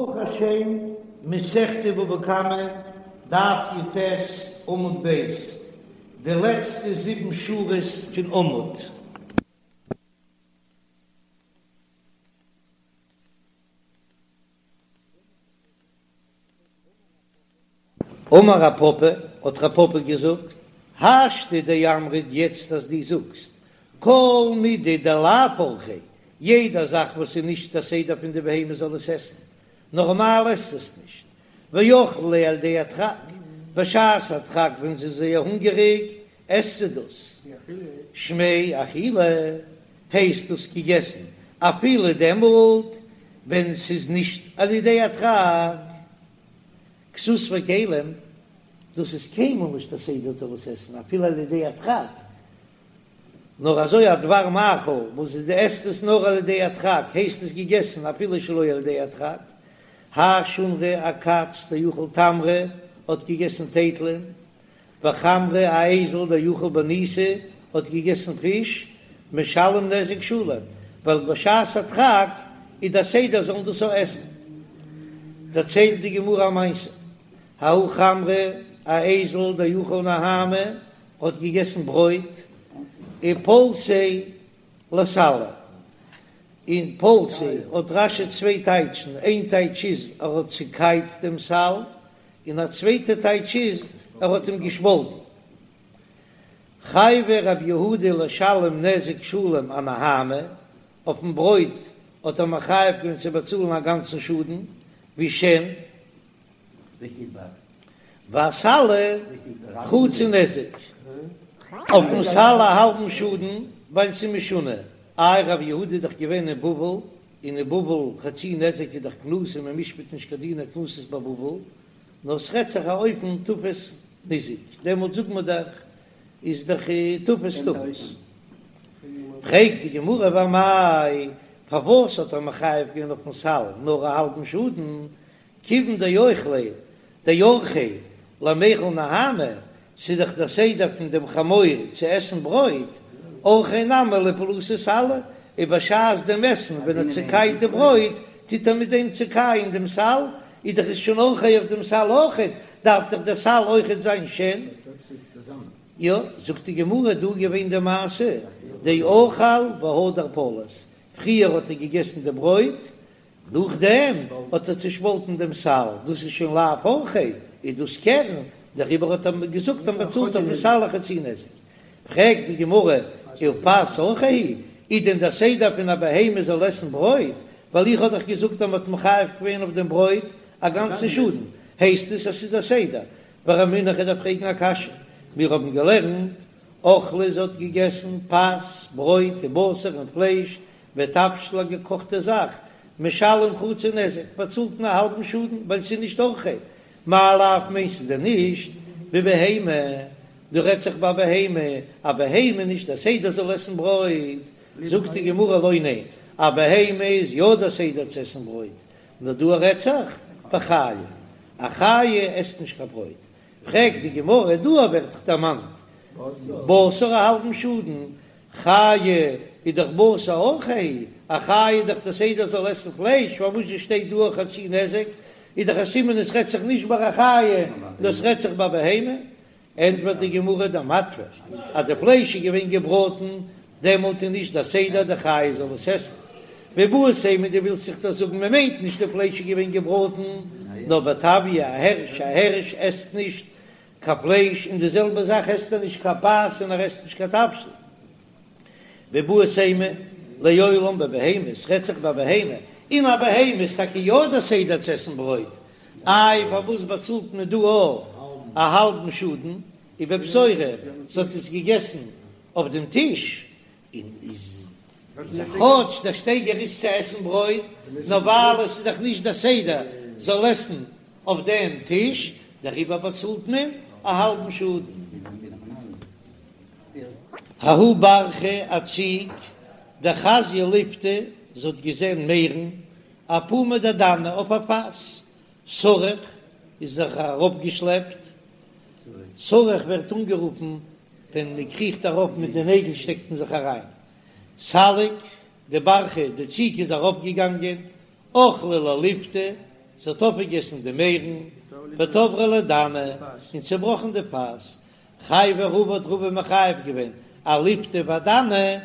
ברוך השם, מסכת בבא קמא, דף י"ט, עמוד ב', די לעצטע זיבן שורות פון עמוד. אמר רב פפא, האט רב פפא געזאגט, השתא דאמרת יעצט אז דו זאגסט כל מידי דלאו אורחיה, יעדע זאך וואס איז נישט א סדר פון די בהמה זאל עס עסן, נארמאל עסט עס נישט, ואכלה ליה על ידי הדחק, בשעת הדחק ווען זי איז זייער הונגעריג עסט זי דאס, שמיה אכילה, הייסט דאס געגעסן אפילו דעמאלט ווען ס'איז נישט על ידי הדחק. כסות וכלים, דאס איז קיינמאל נישט א סדר זאל עס עסן אפילו על ידי הדחק, נאר אזוי א דבר מאכל וואס דו עסט עס נאר על ידי הדחק הייסט עס געגעסן אפילו שלא על ידי הדחק. האי שונרא א קאץ דאכל תמרי האט געגעסן טייטלען, וחמרא א אייזל דאכל בניתא האט געגעסן פיש, משלם נזק שלם, ווייל בשעת הדחק איז דער סדר זאלן דאס אויך עסן. דערציילט די גמרא א מעשה, ההוא חמרא א אייזל דאכל נהמא האט געגעסן ברויט, ופלסיה לסלא, און פלסיה האט רש"י צוויי טייטשן, איין טייטש איז ער האט צוקייט דעם סל, און א צווייטע טייטש איז ער האט אים געשפאלטן. חייביה רב יהודה לשלם נזק שלם אנהמא, אויפן ברויט האט ער מחייב געווען צו באצאלן א גאנצן שאדן, ווי שן, ואסלא חצי נזק, אויפן סל א האלבן שאדן, ווייל ס'איז משונה, איי רב יהודה איז דאך געווען אין בבל, און אין בבל חצי נזק איז דאך קנסא מען משפט נישט קיין דיני קנסות בבבל, נאר ס'רעדט זיך א אופן תפס ניזק, דעמאלט זאגט מען דאך איז דאך תפס תפס. פרעגט די גמרא ואמאי, פארוואס האט ער מחייב געווען אויפן סל נאר א האלבן שאדן, כיוון דאוכליה דאורחיה למיכל נהמא, ס'איז דאך דער סדר פון דעם חמור צו עסן ברויט, אורחיה נמי לפלוסי סלא, און בשעת דעם עסן ווען ער צוקייט די ברויט, טוט ער מיט דעם צוקייען דעם סל, איז דאך עס שוין אורחיה אויף דעם סל אויכעט, דארף דאך דער סל אויכעט זיין שן. יא, זאגט די גמרא, דא איז געווען די מעשה, דאכל והדר פלס, פריער האט ער געגעסן די ברויט, נאכדעם האט ער צושפאלטן דעם סל, דאס איז שוין לאו אורחיה, איז דאס קרן, דעריבער האט ער געזאגט אז מען באצאלט אויפן סל א חצי נזק. פרעגט די גמרא, ופת אורחיה היא, איז דען דער סדר פון א בהמה זאל עסן ברויט, ווייל איך האב דאך געזאגט אז מען האט מחייב געווען אויף דעם ברויט א גאנצן שאדן, הייסט עס אז ס'איז דער סדר? ורמינהו, איך דארף פרעגן א קשיא, מיר האבן געלערנט, אכלה זי האט געגעסן פת, ברויט, ובשר און פלייש, ותבשיל א געקאכטע זאך, משלם חצי נזק, באצאלט מען א האלבן שאדן ווייל ס'איז נישט אורחיה, מאי לאו מיינסטו דען נישט בבהמה, דא רעדט זיך ביי בהמה, א בהמה נישט דער סדר זאל עסן ברויט, זאגט די גמרא לא ניין, א בהמה איז יא דער סדר צו עסן ברויט, נאר דא רעדט זיך בחיה, א חיה עסט נישט קיין ברויט, פרעגט די גמרא דא ווערט דאך דערמאנט בשר א האלבן שאדן, חיה איז דאך בשר אורחיה, א חיה איז דאך די סדר זאל עסן פלייש, פארוואס זשע שטייט דא א חצי נזק, איז דאך א סימן עס רעדט זיך נישט ביי א חיה, נאר עס רעדט זיך ביי בהמה, ענטפערט די גמרא דמטוי, אז די פלייש איז געווען געבראטן, דעמאלט איז נישט די סדר די חיה זאל עס עסן. ואיבעית אימא דו ווילסט זיך דאך זאגן מען מיינט נישט די פלייש איז געווען געבראטן, נאר בטביא א הערש, א הערש עסט נישט קיין פלייש, און די זעלבע זאך עסט ער נישט קיין פת און ער עסט נישט קיין תבשיל. ואיבעית אימא לעולם בבהמה, עס רעדט זיך ביי בהמה, און א בהמה איז טאקע יא דער סדר צו עסן ברויט, איי פארוואס באצאלט מען דא א האלבן שאדן, ובפתורא, זי האט עס געגעסן אויף דעם טיש, און איז כאטש דער שטייגער איז צו עסן ברויט, נאר ווייל עס איז דאך נישט דער סדר זאל עסן אויף דעם טיש, דעריבער באצאלט מען א האלבן שאדן. ההוא ברחא א ציג דחזיא ליפתא, זי האט געזען מערן אפומא דדנא אויף א פאס, סרח איז זיך אראפגעשלעפט, סרח ווערט אנגערופן ווען מען קריכט ארויף מיט די נעגל שטעקט מען זיך אריין, סליק די ברחא די ציג איז ארויפגעגאנגען, אכלה לה ליפתא. זי האט אויפגעגעסן די מערן, ותברה ליה דנא, און צעבראכן די פאס, חייביה רבא האט רבא מחייב געווען אליפתא ואדנא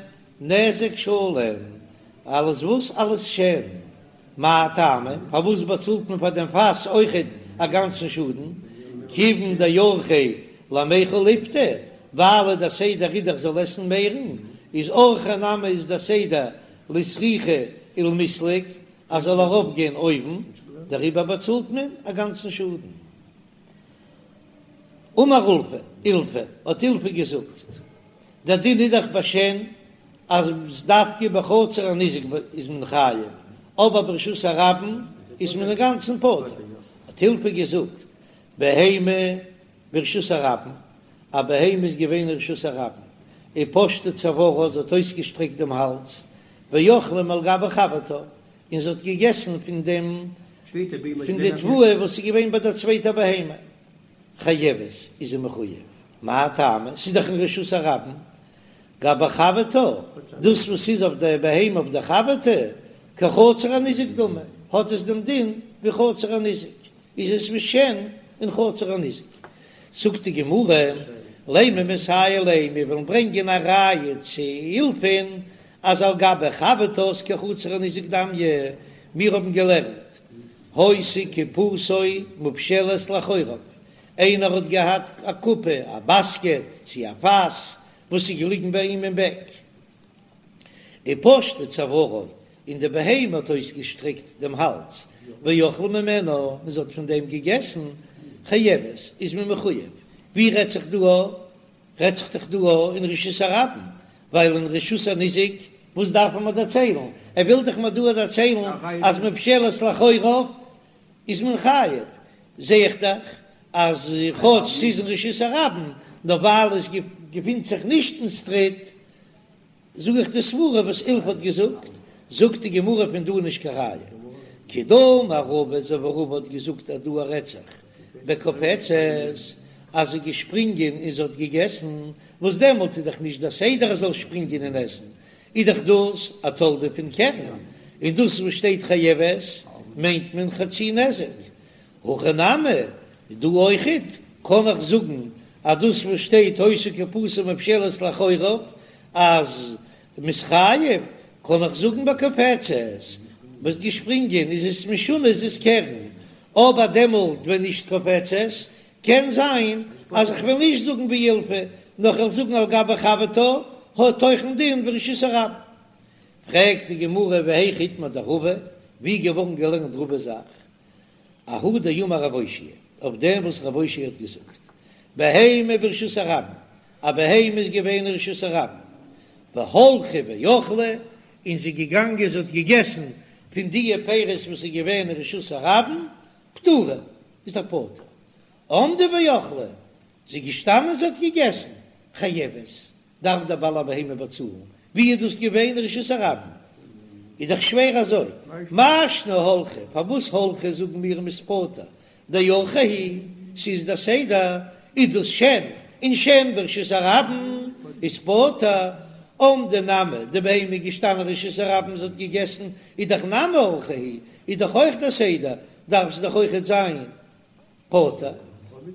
נזק שלם, אלס וואס? אלס שן. מאי טעמא? פארוואס באצאלט מען פאר דעם פאס אויכעט א גאנצן שאדן? כיוון דאורחיה למיכל ליפתא, ווייל דער סדר איז דאך זאל עסן מערן, איז אורחיה נמי איז דער סדר לסרוכי ולמסלק אז זאל ארויף גיין אויבן, דעריבער באצאלט מען א גאנצן שאדן. אמר אולפא, אילפא, האט אילפא געזאגט, דער דין איז דאך ביי שן אז דווקא בחצר הניזק איז מען חייב, אבער ברשות הרבים איז מען אינגאנצן פטור. האט אילפא געזאגט, בהמה ברשות הרבים, א בהמה איז געווען אין רשות הרבים, ופשטה צוארה, זי האט אויסגעשטרעקט דעם האלז, ואכלה מעל גבי חברתה, און זי האט געגעסן פון דעם פון די תבואה וואס איז געווען ביי דער צווייטער בהמה, חייבת, איז זי מחוייב, מאי טעמא, ס'איז דאך אין רשות הרבים, גבי חברתה, דאס וואס איז אויף דער בהמה אויף דער חברתה, כחצר הניזק דמי, האט עס דעם דין ווי חצר הניזק, איז עס ווי שן אין חצר הניזק. זאגט די גמרא, לימא מסייע ליה, מיר ווילן ברענגען א ראיה צו אילפא'ן אז על גבי חברתה איז כחצר הניזק דמיא, מיר האבן געלערנט היתה קופתו מופשלת לאחוריו, איינער האט געהאט א קופה, א באסקעט צי א פאס וואס איז געליגן ביי אים אין בעק, ופשטה צוארה, און די בהמה האט אויסגעשטרעקט דעם האלז, ואכלה ממנה, און זי האט פון דעם געגעסן, חייבת, איז מען מחויב. ווי רעדט זיך דא? רעדט זיך דאך דא אין רשות הרבים, ווייל אין רשות הניזק, וואס דארף ער מיר דערציילן? ער וויל דאך מיר דא דערציילן אז מופשלת לאחוריו איז מען חייב, זע איך דאך אז כאטש ס'איז אין רשות הרבים, נאר ווייל עס געפינט זיך נישט אין סטריט, זאג איך די סברה וואס אילפא האט געזאגט, זאגט די גמרא פון דא נישט קיין ראיה, כדאמר רבא אזוי ווי רבא האט געזאגט אז דא רעדט זיך בקופצת אז זי איז געשפרינגען און זי האט געגעסן, וואס דעמאלט איז דאך נישט דער סדר ער זאל שפרינגען און עסן, איז דאך דאס א תולדה פון קרן, און דאס וואס שטייט חייבת מיינט מען חצי נזק, הכא נמי, דא אויכעט קען איך זאגן אז דאס וואס שטייט היתה קופתו מופשלת לאחוריו אז מ'איז חייב, קען איך זאגן בקופצת וואס געשפרינגען איז עס משונה איז עס קרן, אבער דעמאלט ווען נישט קופצת קען זיין אז איך וועל נישט זאגן ווי אילפא נאר כ'וועל זאגן על גבי חברתה האט אויך א דין ווי רשות הרבים. פרעגט די גמרא והיכא איתמר דרבא, ווי געווארן געלערנט רבא'ס זאך? אהא דאמר רב אושעיא, אויף דעם וואס רב אושעיא האט געזאגט, בהמה ברשות הרבים, א בהמה איז געווען אין רשות הרבים, והלכה ואכלה, און זי איז געגאנגען זי האט געגעסן פון דיע פירות וואס איז געווען אין רשות הרבים, פטורה, איז ער פטור. עמדה ואכלה, זי איז געשטאנען זי האט געגעסן, חייבת, דארף דער בעל הבהמה באצאלן, ווי איז דאס געווען רשות הרבים? איז דאך שווער אזוי, מאי שנא הלכה, פארוואס הלכה זאגן מיר מ'איז פטור, דאורחה היא, ס'איז דער סדר, איז דאס שן, און שן ברשות הרבים איז פטור, עמדה נמי, די בהמה איז געשטאנען רשות הרבים זי האט געגעסן, איז דאך נמי אורחה היא, איז דאך אויך דער סדר, דארף זי דאך אויכעט זיין פטור,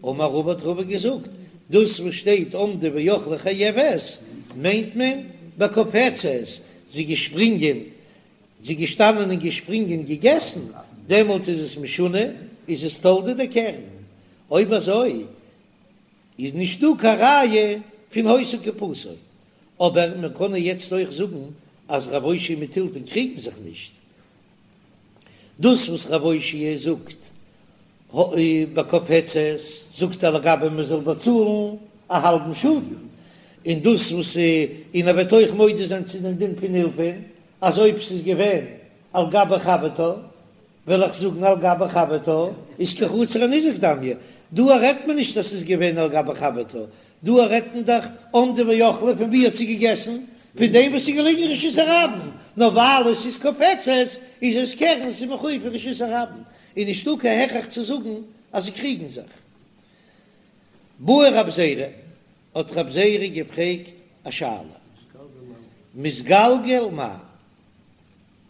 אמר רבא האט רבא געזאגט, דאס וואס שטייט עמדה ואכלה חייבת מיינט מען בקופצת, זי געשפרינגען, זי געשטאנען און געשפרינגען געגעסן, דעמאלט איז עס משונה, איז עס תולדה דקרן, אויב אזוי איז נישט דא קיין ראיה פון היתה קופתו, אבער מען קען יעצט אויך זאגן אז רב אושעיא מיט אילפא'ן קריגן זיך נישט, דאס וואס רב אושעיא זאגט בקופצת זאגט ער לגבי מען זאל באצאלן א האלבן שאדן, און דאס וואס און ער וועט אויך מודה זיין צו דעם דין פון אילפא'ן אז אויב ס'איז געווען על גבי חברתה וועל איך זאגן על גבי חברתה איז כחצר הניזק דמיא, דא רעדט מען נישט אז ס'איז געווען על גבי חברתה, דא רעדט מען דאך עמדה ואכלה פון ווי האט זי געגעסן? פון דעם וואס איז געליגן אין רשות הרבים, נאר ווייל עס איז קופצת איז עס קרן, ס'איז מחויב פון רשות הרבים, איז נישטא קיין הכרח צו זאגן אז זיי קריגן זיך. בעי רב זירא, האט רב זירא געפרעגט א שאלה, מתגלגל מהו,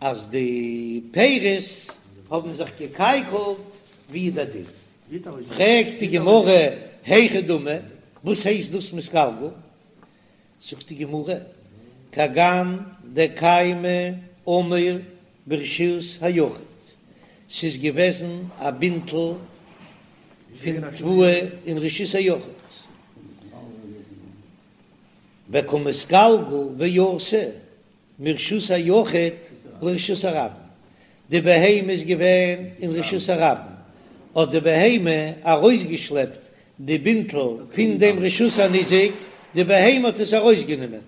אז די פירות. האבן זיך געקייקלט, ווי איז דער דין? פרעגט די גמרא, היכי דמי, וואס הייסט דאס מתגלגל? זאגט די גמרא, כגון דקיימא עמיר ברשות היחיד, ס'איז געוועזן א בינטל פון תבואה אין רשות היחיד, וקא מתגלגל ואתי מרשות היחיד לרשות הרבים, די בהמה איז געווען אין רשות הרבים, האט די בהמה ארויסגעשלעפט די בינטל פון דעם רשות הניזק, די בהמה האט עס ארויסגענומען,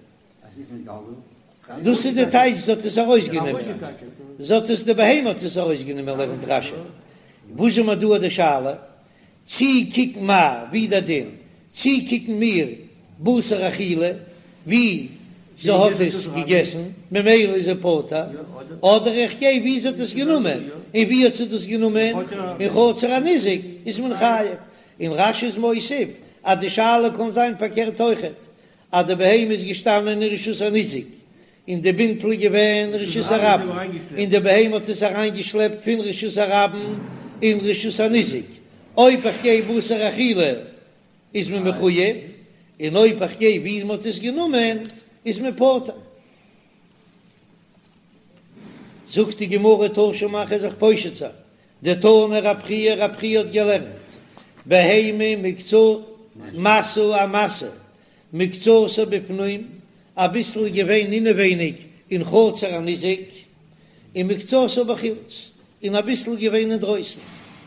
דאס איז די טייטש זי האט עס ארויסגענומען, זי האט עס די בהמה האט עס ארויסגענומען לערנט רש"י, וואס איז מיר דא די שאלה? צי קוקן מיר ווי דער דין, צי קוקן מיר בתר אכילה ווי זי האט עס געגעסן ממילא איז זי פטור, אדער איך גיי ווי זי האט עס גענומען, און ווי האט זי דאס גענומען? אין חצר הניזק איז מען חייב, און רש"י איז מוסיף אז די שאלה קען זיין פארקערט אויכעט, אז די בהמה איז געשטאנען אין רשות הניזק און די בינטל איז געווען רשות הרבים, און די בהמה האט עס אריינגעשלעפט פון רשות הרבים אין רשות הניזק, אויב איך גיי בתר אכילה איז מען מחוייב, און אויב איך גיי ווי מען האט עס גענומען איז מען פטור. זאגט די גמרא תא שמע כ'וועל זיך פושט זיין, דתני רב חייא, רב חייא האט געלערנט בהמה מקצ משא א משא מקצתה בפנים, אביסל איז געווען אינעווייניג אין חצר הניזק, און מקצתה בחוץ, און אביסל איז געווען אינדרויסן,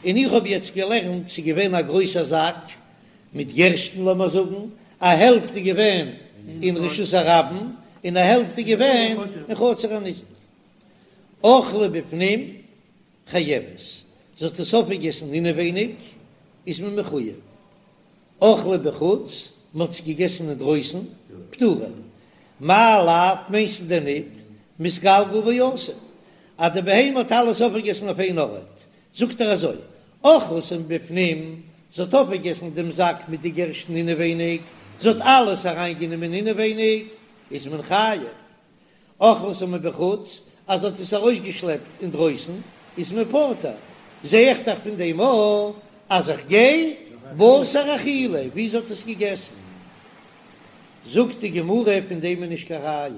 און איך האב יעצט געלערנט ס'איז געווען א גרויסע זאק מיט גערשטן לאמער זאגן, א העלפט איז געווען אין רשות הרבים, און א העלפט איז געווען אין חצר הניזק. אכלה בפנים חייבת, זי האט עס אויפגעגעסן אינעווייניג, איז מען מחוייב. אכלה בחוץ, מען האט עס געגעסן אינדרויסן, פטורה. מאי לאו, מיינסטו דען ניט, מתגלגל ואתי, אז די בהמה האט אלעס אויפגעגעסן אויף איין ארט, זאגט ער אזוי, אכלתו מבפנים, זי האט אויפגעגעסן דעם זאק מיט די גערשטן אינעווייניג, זי האט אלעס אריינגענומען אינעווייניג, איז מען חייב. אכלתו מבחוץ, אז זי האט עס ארויסגעשלעפט אינדרויסן, איז מען פטור. זע איך דאך פון דעם א אז איך גיי בתר אכילה, ווי זי האט עס געגעסן. זאגט די גמרא, פון דעם איז נישט קיין ראיה.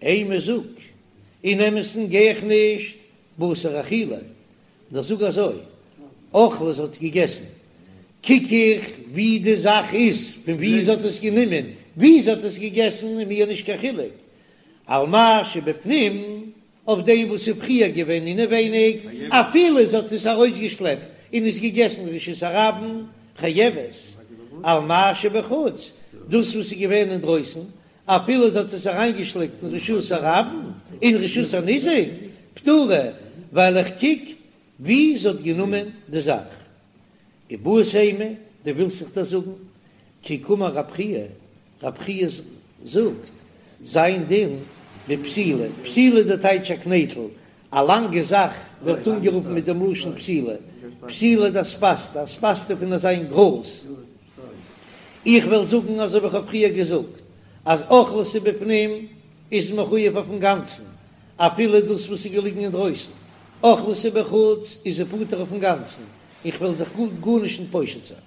אימא זאג, אין אמת'ן גיי איך נישט בתר אכילה, נאר זאג אזוי, אכלה זי האט געגעסן, קוק איך ווי די זאך איז, פון ווי זי האט עס גענומען, ווי זי האט עס געגעסן איז מיר נישט קיין חילוק, על מה שבפנים, אויף דעם וואס איז פריער געווען אינעווייניג, אפילו זי האט עס ארויסגעשלעפט און עס געגעסן רשות הרבים, חייבת, על מה שבחוץ, דאס וואס איז געווען אינדרויסן, אפילו זי האט עס אריינגעשלעפט אין רשות הרבים, אין רשות הניזק, פטורה, ווייל איך קוק ווי זי האט גענומען די זאך. איבעית אימא, דו ווילסט זיך דאס זאגן? כי קאמר רב חייא, רב חייא זאגט, זיין דין בפתילה, פתילה די טייטש א קנייטל, א לאנגע זאך ווערט אנגערופן מיט דעם לשון פתילה, פתילה דאספסתא, אספסתא פון אזיין גראז. איך וועל זאגן אזוי ווי איך האב פריער געזאגט אז אכלתו בפנים איז מחויב אויפן גאנצן אפילו דאס וואס איז געליגן אינדרויסן, אכלתו בחוץ איז ער פטור אויפן גאנצן, איך וועל זיך גארנישט נישט פושט זיין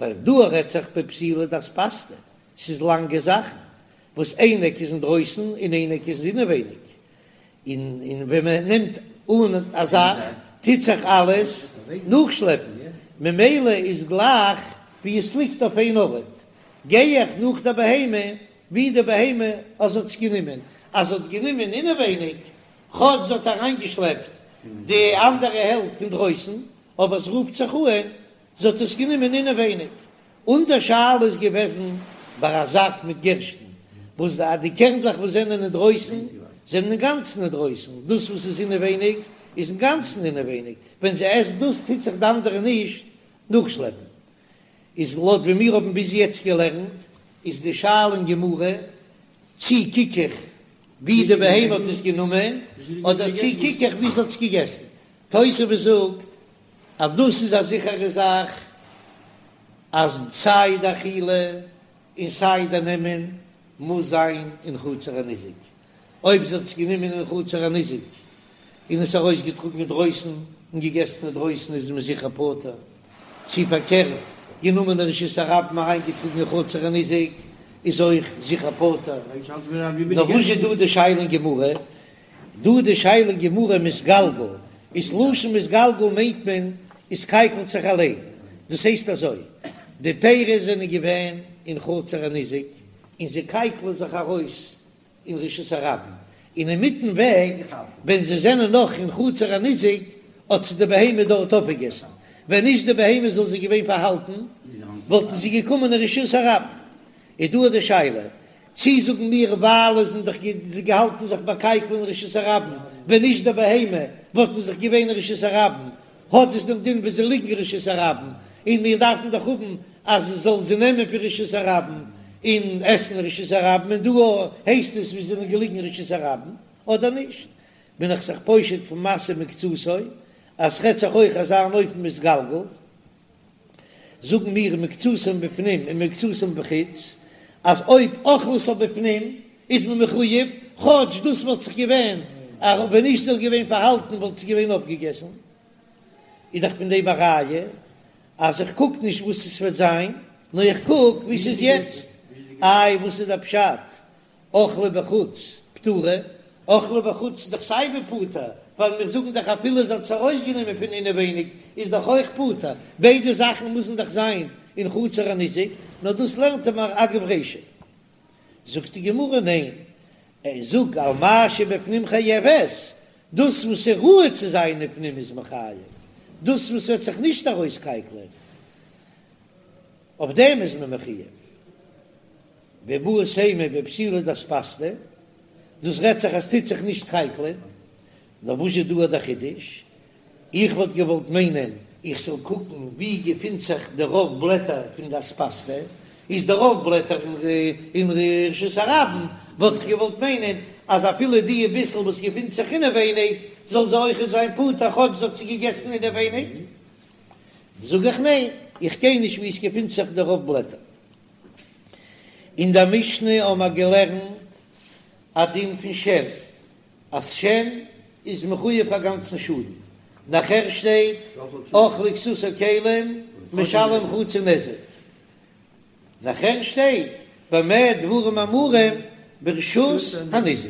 ווייל דא רעדט זיך בפתילה דאספסתא, ס'איז לאנגע זאכן וואס איין עק איז אינדרויסן און איין עק איז אינעווייניג, און און ווען מען נעמט אן א זאך טוט זיך אלעס נאכשלעפן, ממילא איז גלייך ווי עס ליגט אויף איין ארט, גיי איך נאך די בהמה ווי די בהמה אז האט עס גענומען, אז זי האט גענומען אינעווייניג, כאטש זי האט אריינגעשלעפט די אנדערע העלפט פון דרויסן, אבער עס רופט זיך אן זי האט עס גענומען אינעווייניג. אונזער שאלה איז געוועזן ביי א זאק מיט גערשטן, וואס די קערנדלעך וואס זענען אינדרויסן זענען אינגאנצן אינדרויסן, דאס וואס איז אינעווייניג איז אינגאנצן אינעווייניג, ווען זי עסט דאס טוט זיך די אנדערע נישט נאכשלעפן. איז לויט ווי מיר האבן ביז יעצט געלערנט, איז די שאלה אין גמרא, צי קוק איך ווי די בהמה האט עס גענומען, אדער צי קוק איך ווי זי האט עס געגעסן. תוספות זאגט אז דאס איז א זיכערע זאך אז סיי די אכילה און סיי די נעמען מוז זיין אין חצר הניזק, אויב זי האט עס גענומען אין חצר הניזק. און עס ארויסגעטראגן אינדרויסן און געגעסן אינדרויסן איז מען זיכער פטור, צי פארקערט, גענומען אין רשות הרבים אריינגעטראגן אין חצר הניזק איז אויך זיכער פטור. נאר וואס איז דא די שאלה אין גמרא? דא די שאלה אין גמרא מתגלגל, איז לשון מתגלגל מיינט מען עס קייקלט זיך אליין, דאס הייסט אזוי, די פירות זענען געווען אין חצר הניזק און זיי קייקלען זיך ארויס אין רשות הרבים, און אינמיטן וועג ווען זיי זענען נאך אין חצר הניזק האט זיי די בהמה דארט אויפגעגעסן, ווען נישט די בהמה זאל זיי געווען פארהאלטן וואלטן זיי געקומען אין רשות הרבים, איז דא די שאלה צי זאגן מיר ווייל עס זענען דאך זיי געהאלטן זיך באקייקלען אין רשות הרבים, ווען נישט די בהמה וואלטן זיך געווען אין רשות הרבים, האט עס דעם דין ווי זיי ליגן אין רשות הרבים, און מיר דארפן דאך האבן אז עס זאל זיי נעמען פון רשות הרבים און עסן אין רשות הרבים, און דא הייסט עס ווי זיי זענען געליגן אין רשות הרבים, אדער נישט? בין איך זיך פושט פון משא מקצתו אז ס'רעדט זיך אויך אזא אן אופן מתגלגל. זאגן מיר מקצתן בפנים און מקצתן בחוץ, אז אויב אכלתו בפנים איז מען מחויב, כאטש דאס וואלט זיך געווען, ווען נישט זאל געווען פארהאלטן וואלט עס געווען אויפגעגעסן, איז דאך פון דעם א ראיה אז איך קוק נישט וואס עס וועט זיין, נאר איך קוק ווי ס'איז יעצט. איי וואס איז דער פשט אכלה בחוץ פטורה, אכלה בחוץ איז דאך סיי ווי פטור, ווייל מיר זאגן דאך אפילו זי האט עס ארויסגענומען פון אינעווייניג איז דאך אויך פטור, ביידע זאכן מוזן דאך זיין אין חצר הניזק, נאר דאס לערנט ער מיר אגב רישא. זאגט די גמרא ניין, איך זאג על מה שבפנים חייבת, דאס וואס איז ראוי צו זיין אין פנים איז מען חייב, דאס וואס וועט זיך נישט ארויסקייקלען אויף דעם איז מען מחויב. ואיבעית אימא בפתילה דאספסתא, דאס רעדט זיך אז ס'טוט זיך נישט קייקלען, נאר וואס איז דא דער חידוש? איך וואלט געוואלט מיינען איך זאל קוקן ווי געפינט זיך די רוב בלעטער פון די אספסתא, איז די רוב בלעטער אין רשות הרבים, וואלט איך געוואלט מיינען אז אפילו די ביסל וואס געפינט זיך אינעווייניג זאל זי אויכעט זיין פטור כאטש זי האט זי געגעסן אינעווייניג, זאג איך ניין, איך גיי נישט ווי עס געפינט זיך די רוב בלעטער. אין דער משנה האבן מיר געלערנט א דין פון שן, אז שן איז מחויב א גאנצן שאדן, נאכער שטייט אכלה כסות או כלים משלם חצי נזק, נאכער שטייט במה דברים אמורים ברשות הניזק,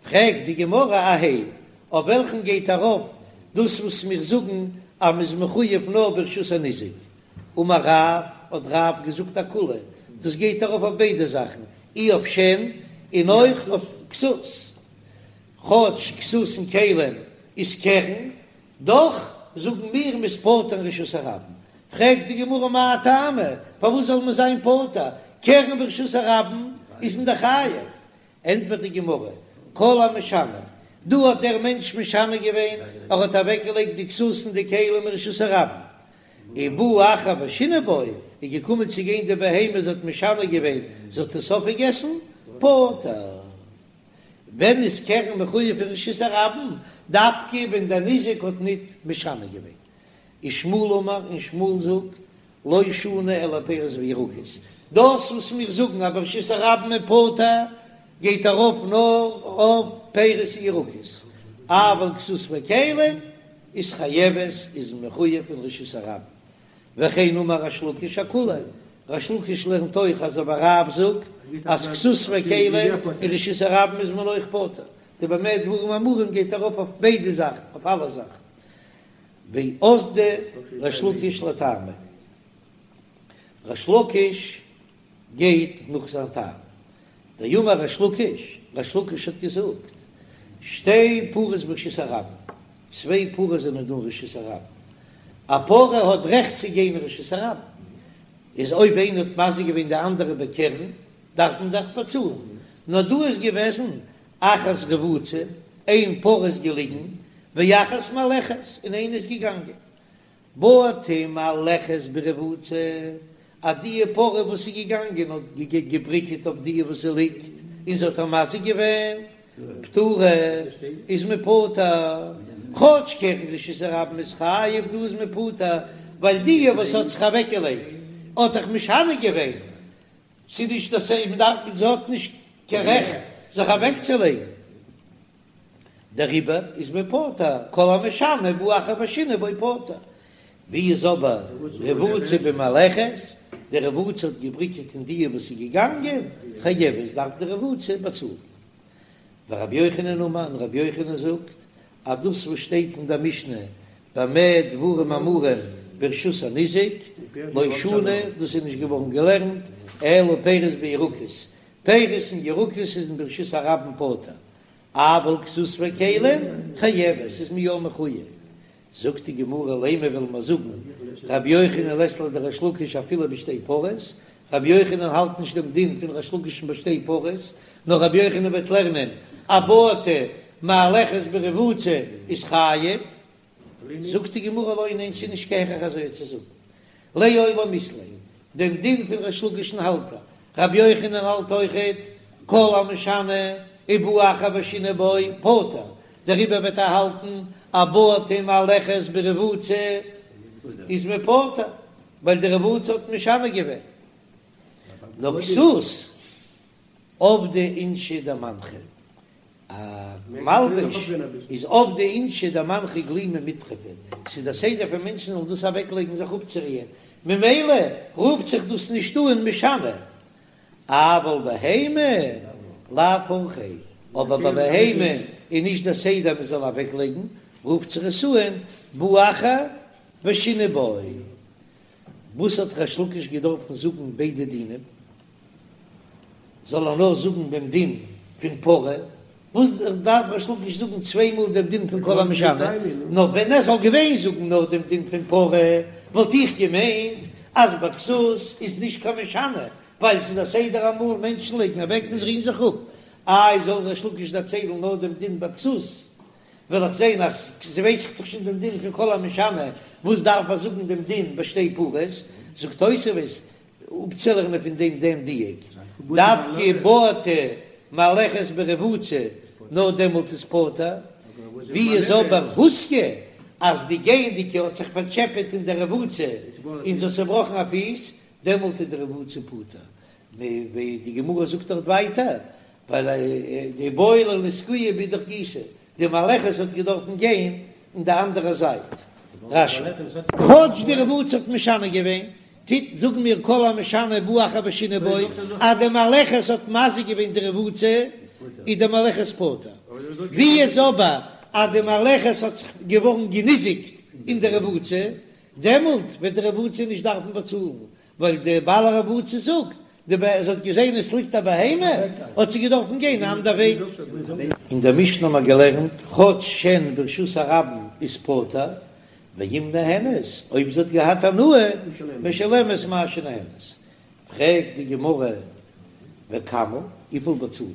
פרעגט די גמרא אהייא, אויף וועלכן גייט ארויף דאס וואס מיר זאגן אז מ'איז מחויב נאר ברשות הניזק, אמר רב, האט רב געזאגט אכולהו, דאס גייט ארויף אויף ביידע זאכן, אי אויף שן און אויך אויף כסות, כאטש כסות און כלים איז קרן, דאך זאגן מיר מ'איז פטור אין רשות הרבים. פרעגט די גמרא מאי טעמא, פארוואס זאל מען זיין פטור, קרן ברשות הרבים איז מען דאך חייב, ענטפערט די גמרא, כל המשנה, דא האט דער מענטש משנה געווען, ער האט אוועקגעלייגט די כסות און די כלים אין רשות הרבים, ובא אחר ושינה בו, איז געקומען צו גיין די בהמה, זי האט משנה געווען, זי האט עס אויפגעגעסן, פטור. ווען איז קרן מחויב אין רשות הרבים? דווקא ווען דער ניזק האט ניט משנה געווען. ושמואל אמר, און שמואל זאגט, לא שנו אלא פירות וירקות, דאס וואס מיר זאגן אז ברשות הרבים איז פטור גייט ארויף נאר אויף פירות און ירקות, אבל כסות וכלים איז חייבת איז מחויב אין רשות הרבים, וכן אמר ריש לקיש אכולהו, ריש לקיש לערנט אויך אזוי ווי רב זאגט אז כסות וכלים אין רשות הרבים איז מען אויך פטור, די במה דברים אמורים גייט ארויף אויף ביידע זאכן אויף אלע זאכן. ואזדא ריש לקיש לטעמיה, ריש לקיש גייט נאך זיין טעם, דאמר ריש לקיש, ריש לקיש האט געזאגט, שתי פרות ברשות הרבים, צוויי פרות זענען דא אין רשות הרבים, א פרה האט רעכט צו גיין אין רשות הרבים, איז אויב איינער האט מזיק געווען די אנדערע בקרן, דארף מען דאך באצאלן, נאר דא איז געוועזן אחת רבוצה, איין פרה איז געליגן, ואחת מהלכת, און איינע איז געגאנגען. בעטה מהלכת ברבוצה, אז די פרה וואס איז געגאנגען האט געבריקעט אויף די וואס זי ליגט, און זי האט איר מזיק געווען, פטורה, איז מען פטור, כאטש קרן רשות הרבים איז חייב, דא איז מען פטור, ווייל די וואס האט זיך אוועקגעלייגט האט דאך משנה געווען, ס'איז נישט אז מען דארף, זי האט נישט קיין רעכט זיך אוועקצולייגן. דעריבער איז מען פטור, כל המשנה ובא אחר ושינה בו פטור. ווי איז אבער רבוצה במהלכת, די רבוצה האט געבריקעט אין די וואס איז געגאנגען, חייבת דארף די רבוצה באצאלן. ורבי יוחנן אמר, און רבי יוחנן זאגט אז דאס וואס שטייט אין דער משנה במה דברים אמורים ברשות הניזק, לא שנו, דאס איז נישט געווארן געלערנט, אלא פירות וירקות, פירות און ירקות איז אין ברשות הרבים פטור, אבל כסות וכלים חייבת, איז מען יא מחויב. זאגט די גמרא לימא וועלן מיר זאגן רבי יוחנן לית ליה דריש לקיש אפילו בשתי פרות, רבי יוחנן האלט נישט דעם דין פון ריש לקיש'ן ביי שתי פרות, נאר רבי יוחנן וועט לערנען א בעטה מהלכת ברבוצה איז חייב, זאגט די גמרא לא ניין ס'איז נישט קיין הכרח אזוי צו זאגן, לעולם אית ליה, דעם דין פון ריש לקיש'ן האלט ער, רבי יוחנן האלט אויכעט כל המשנה ובא אחר ושינה בו פטור, דעריבער וועט ער האלטן א בעטה מהלכת ברבוצה איז מען פטור, ווייל די רבוצה האט משנה געווען. נאר כסות עבדי אינשי דמנחי, א מלבוש איז עבדי אינשי דמנחי גלימי מיטרפא, ס'איז דער סדר פון מענטשן זאלן דאס אוועקלייגן זיך אפצורוען, ממילא רופט זיך דאס נישט אן משנה, אבל בהמה לאו אורחיה, אבער ביי בהמה איז נישט דער סדר מען זאל אוועקלייגן, רופט זיך עס אן בא אחר ושינה בו. וואס האט ריש לקיש געדארפן זאגן ביידע דינים? זאל ער נאר זאגן דעם דין פון פרה, וואס דארף ריש לקיש זאגן צוויי מאל דעם דין פון כל המשנה? נאר ווען ער זאל געווען זאגן נאר דעם דין פון פרה, וואלט איך געמיינט אז ביי כסות איז נישט קיין משנה, ווייל ס'איז א סדר אמאל מענטשן לייגן אוועק און זיי רוען זיך אפ. איי זאל ריש לקיש דערציילן נאר דעם דין ביי כסות, וועל איך זען אז ווייס איך דאך שוין דעם דין פון כל המשנה, וואס דארף ער זאגן דעם דין ביי שתי פרות? זאגט תוספות, אפצולערנען פון דעם דעם דיוק, דווקא בעטה מהלכת ברבוצה, נאר דעמאלט איז פטור, ווי איז אבער הוזקה אז די גייענדיגע האט זיך פארטשעפעט אין די רבוצה און זי האט צעבראכן א פיס, דעמאלט איז די רבוצה פטור, ווי די גמרא זאגט דארט ווייטער, ווייל דאיבעי לה לסגויי באידך גיסא, די מהלכת האט געדארפן גיין אין די אנדערע זייט. רש"י. כאטש די רבוצה האט משנה געווען, טוט זאגן מיר כל המשנה ובא אחר ושינה בו, אז די מהלכת האט מזיק געווען די רבוצה, איז די מהלכת פטור. ווי איז אבער אז די מהלכת האט זיך געווארן געניזיקט אין די רבוצה, דעמאלט וועט די רבוצה נישט דארפן באצאלן, ווייל די בעל הרבוצה זאגט, די ב זי האט געזען עס ליגט א בהמה, האט זי געדארפן גיין א אנדער וועג. אין דער משנה האט מען געלערנט, כאטש שן ברשות הרבים איז פטור, ואם נהנית, אויב זי האט געהאט הנאה, משלמת מה שנהנית. פרעגט די גמרא, וכמה, וויפיל באצאלט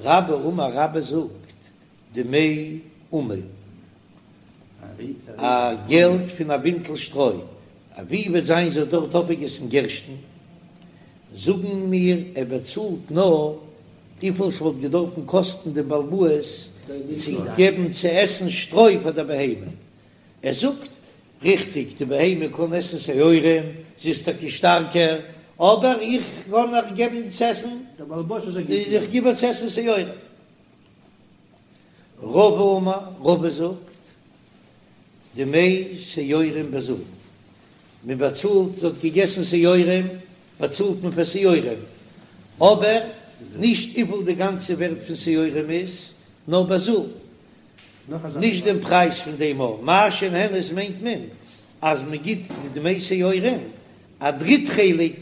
מען? רבה אמר רבה זאגט, דמי אמה, א געלט פון א בינטל שטרוי, ווי וועט זיין זי האט דארט אויפגעגעסן גערשטן, זאגן מיר ער באצאלט נאר וויפיל ס'וואלט געדארפן קאסטן דעם בעל הבית צו געבן צו עסן שטרוי פאר דער בהמה, ער זאגט ריכטיג די בהמה קען עסן שעורים, זי איז טאקע שטארקער, אבער איך קען איר געבן צו עסן, איך גיב איר צו עסן שעורים. רבא אמר, רבא זאגט, דמי שעורים בזול, מען באצאלט, זי האט געגעסן שעורים, באצאלט מען פאר שעורים, אבער נישט וויפיל די גאנצע ווערט פון שעורים איז, נאר בזול, נישט דעם פרייז פון דעם אויך, מה שנהנית מיינט מען אז מען גיט די דמי שעורים א דריט חלק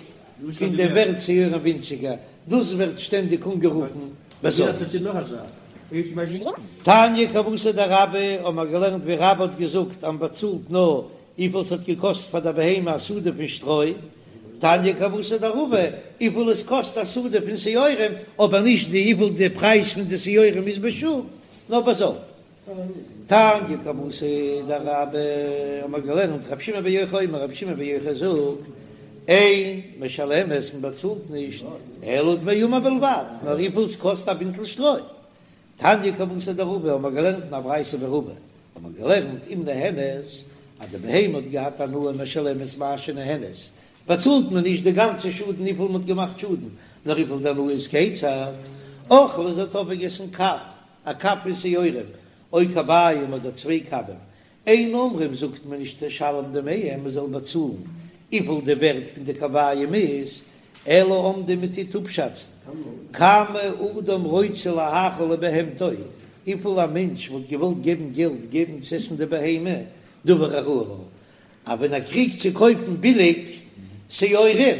פון די ווערט שעורים ווינציגער, דאס ווערט שטענדיג אנגערופן בזול. תניא כוותיה דרבה האבן מיר געלערנט ווי רבה האט געזאגט אז מ'באצאלט נאר וויפיל ס'האט געקאסט פאר דער בהמה א סעודה פון שטרוי, תניא כוותיה דרבא וויפיל עס קאסט א סעודה פון שעורים, אבער נישט די וויפיל די פרייז פון די שעורים איז בשוק, נאר בזול. תניא כוותיה דרבה האבן מיר געלערנט רבי שמעון בן יוחאי אומר רבי שמעון בן יוחאי זאגט אין משלמת מען באצאלט נישט אלא דמי אמה בלבד נאר וויפיל עס קאסט א בינטל שטרוי תניא כוותיה דרבא האבן מיר געלערנט אין א ברייתא ווי רבא האבן מיר געלערנט אם נהנית אז די בהמה האט געהאט הנאה משלמת מה שנהנית באצאלט מען נישט די גאנצע שאדן וויפיל מען האט געמאכט שאדן נאר וויפיל די הנאה איז כיצד אכלה זי האט אויפגעגעסן קב. א קב פון שעורים, או קביים אדער צוויי קבים, אין אומרים זאגט מען נישט תשלם דמיהם מען זאל באצאלן וויפיל די ווערט פון די קביים איז, אלא אומדין מען טוט אפשאצן כמה אדם רוצה להאכיל לבהמתו, וויפיל א מענטש וואלט געוואלט געבן געלט געבן צו עסן די בהמה, דבר הראוי לה, אז ווען ער קריגט צו קויפן ביליג שעורים,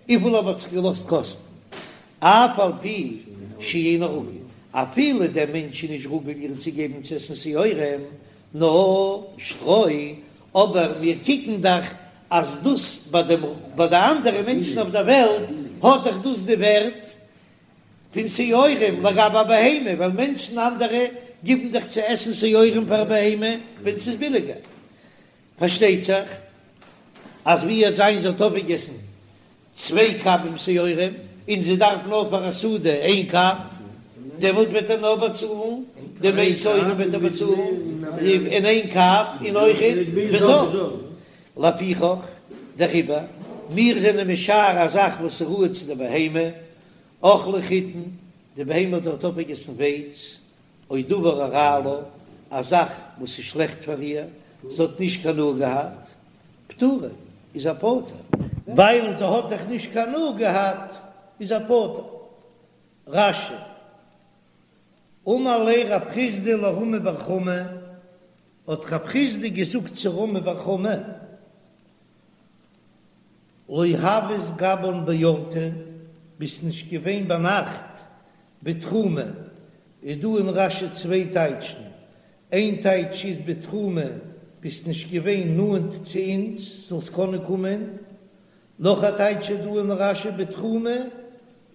וויפיל ער וואלט זיך געלאזט קאסטן, אף על פי שאינו רגיל, אפילו דער מענטש איז נישט רגיל איר צו געבן צו עסן שעורים, נאר שטרוי, אבער מיר קוקן דאך אז דאס ביי דעם ביי די אנדערע מענטשן אויף דער וועלט האט דאך דאס די ווערט פון שעורים לגבי א בהמה, ווייל מענטשן אנדערע גיבן דאך צו עסן שעורים פאר א בהמה ווען ס'איז ביליגער. פארשטייט זיך אז ווי וועט זיין זי האט אויפגעגעסן צוויי קבים שעורים און זי דארף נאר פאר א סעודה איין קב, דעמאלט וועט ער נאר באצאלן דמי שעורים וועט ער באצאלן אין איין קב און אויכעט בזול. לפיכך דעריבער מיר זענען משער א זאך וואס איז ראוי צו די בהמה, אכלה חיטין, די בהמה האט דארט אויפגעגעסן ווייץ, או דבר הרע לה, א זאך וואס איז שלעכט פאר איר, זי האט נישט קיין הנאה געהאט, פטורה, איז ער פטור. ווייל זי האט דאך נישט קיין הנאה געהאט, איז ער פטור. רש"י, אמר ליה רב חסדא לרמי בר חמא, האט רב חסדא געזאגט צו רמי בר חמא, לא הוית גבן באורתא, ביסט נישט געווען ביינאכט בתחומא, איז דא אין רש"י צוויי טייטשן, איין טייטש איז בתחומא, ביסט נישט געווען נאנט צו אונז זאלסט קענען קומען, נאך א טייטש איז דא אין רש"י בתחומא,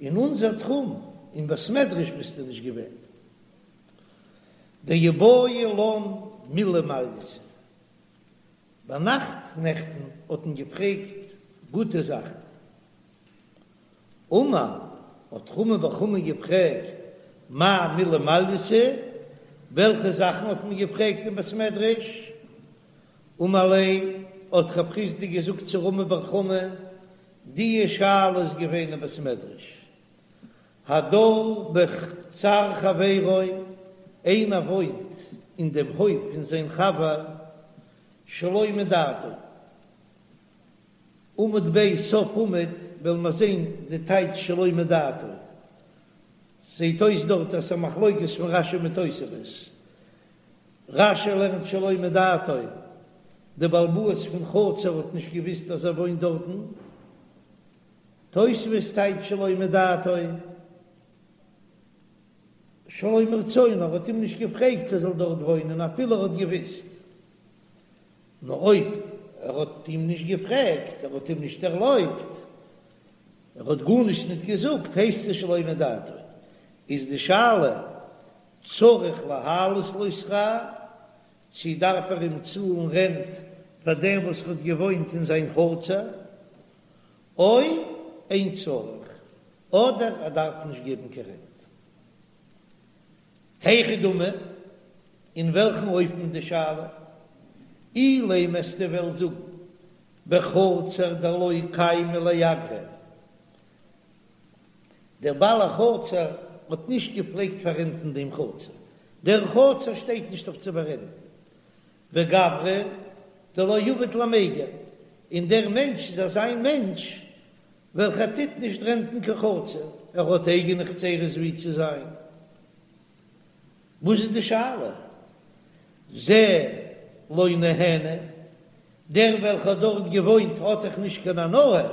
אין אונזער תחום, אין בית מדרש ביסטו נישט געווען. דאיבעיא לן מילי מעלייתא. ביינאכט נעכטן האט מען געפרעגט גוטע זאכן. אמר, האט רמי בר חמא געפרעגט, מאי מילי מעלייתא, וועלכע זאכן האט מען געפרעגט אין בית מדרש? אמר ליה, האט רב חסדא געזאגט צו רמי בר חמא, די שאלה איז געווען אין בית מדרש, הדר בחצר חברו, איינער וואוינט אין דעם הויף פון זיין חבר שלא מדעתו. עמוד ב' סוף עמוד וועלן מיר זען די טייטש שלא מדעתו. זעט אויס דארט אז ס'איז א מחלוקת פון רש"י מיט תוספות. רש"י לערנט שלא מדעתו, די בעל הבית פון חצר האט נישט געוויסט אז ער וואוינט דארטן. תוספות טייטש שלא מדעתו, שלא מרצונו, ער האט אים נישט געפרעגט צו ער זאל דארט וואוינען אפילו ער האט געוויסט. נאר אויב ער האט אים נישט געפרעגט, ער האט אים נישט ערלויבט, ער האט גארנישט ניט געזאגט, הייסט עס שלא מדעתו. איז די שאלה, צריך להעלות לו שכר, צי דארף ער אים צאלן רענט פאר דעם וואס ער האט געוואוינט אין זיין חצר, או אין צריך, אדער ער דארף נישט געבן קיין רענט. היכי דמי, אין וועלכן אופן איז די שאלה? אילימא וועסטו וועלן זאגן בחצר דלא קיימא לאגרא, דער בעל החצר האט נישט געפלעגט פאררענטן דעם חצר, דער חצר שטייט נישט אויף צו פאררענטן, וגברא דלא עביד למיגר, און דער מענטש איז אזא מענטש וועלכער טוט נישט רענטן קיין חצר, ער האט אייגענע חצרות ווי צו זיין. וואס איז די שאלה? זה לא נהנה, דער וועלכער האט דארט געוואוינט האט דאך נישט קיין הנאה,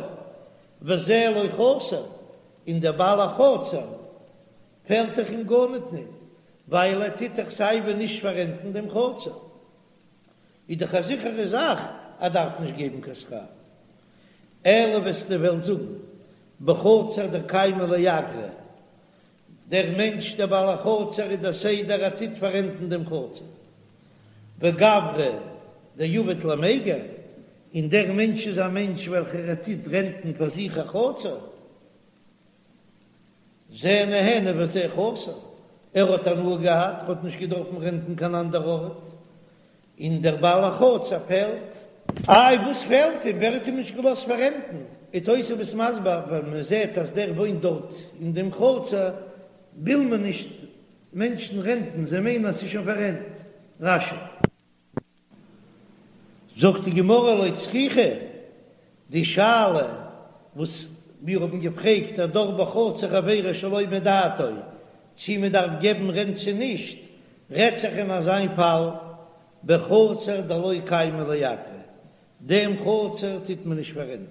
וזה לא חסר, און דער בעל החצר פעלט דאך אים גארניט ניט, ווייל ער טוט דאך סייווי נישט פאררענטן דעם חצר. איז דאך א זיכערע זאך ער דארף נישט געבן קיין שכר. אלא וועסטו וועלן זאגן בחצר דקיימא לאגרא, דער מענטש דער בעל החצר איז דער סדר ער טוט פאררענטן דעם חצר, וגברא דעביד למיגר, און דער מענטש איז א מענטש וועלכער ער טוט רענטן פאר זיך א חצר, זה נהנה וזה חסר, ער האט הנאה געהאט, ער האט נישט געדארפן רענטן קיין אנדער ארט, און דער בעל החצר פעלט. איי וואס פעלט אים? ווער האט אים נישט געלאזט פאררענטן? איז תוספות מסביר, ווען מען זעט אז דער וואוינט דארט אין דעם חצר, וויל מען נישט. מענטשן רענטן, זיי מיינען אז ס'איז שוין פאררענט. רש"י. זאגט די גמרא לא צריכא, די שאלה וואס מיר האבן געפרעגט הדר בחצר חבירו שלא מדעתו, צי מען דארף געבן רענט צי נישט, רעדט זיך אין אזיין פאל בחצר דלא קיימא לאגרא, דעם חצר טוט מען נישט פאררענטן,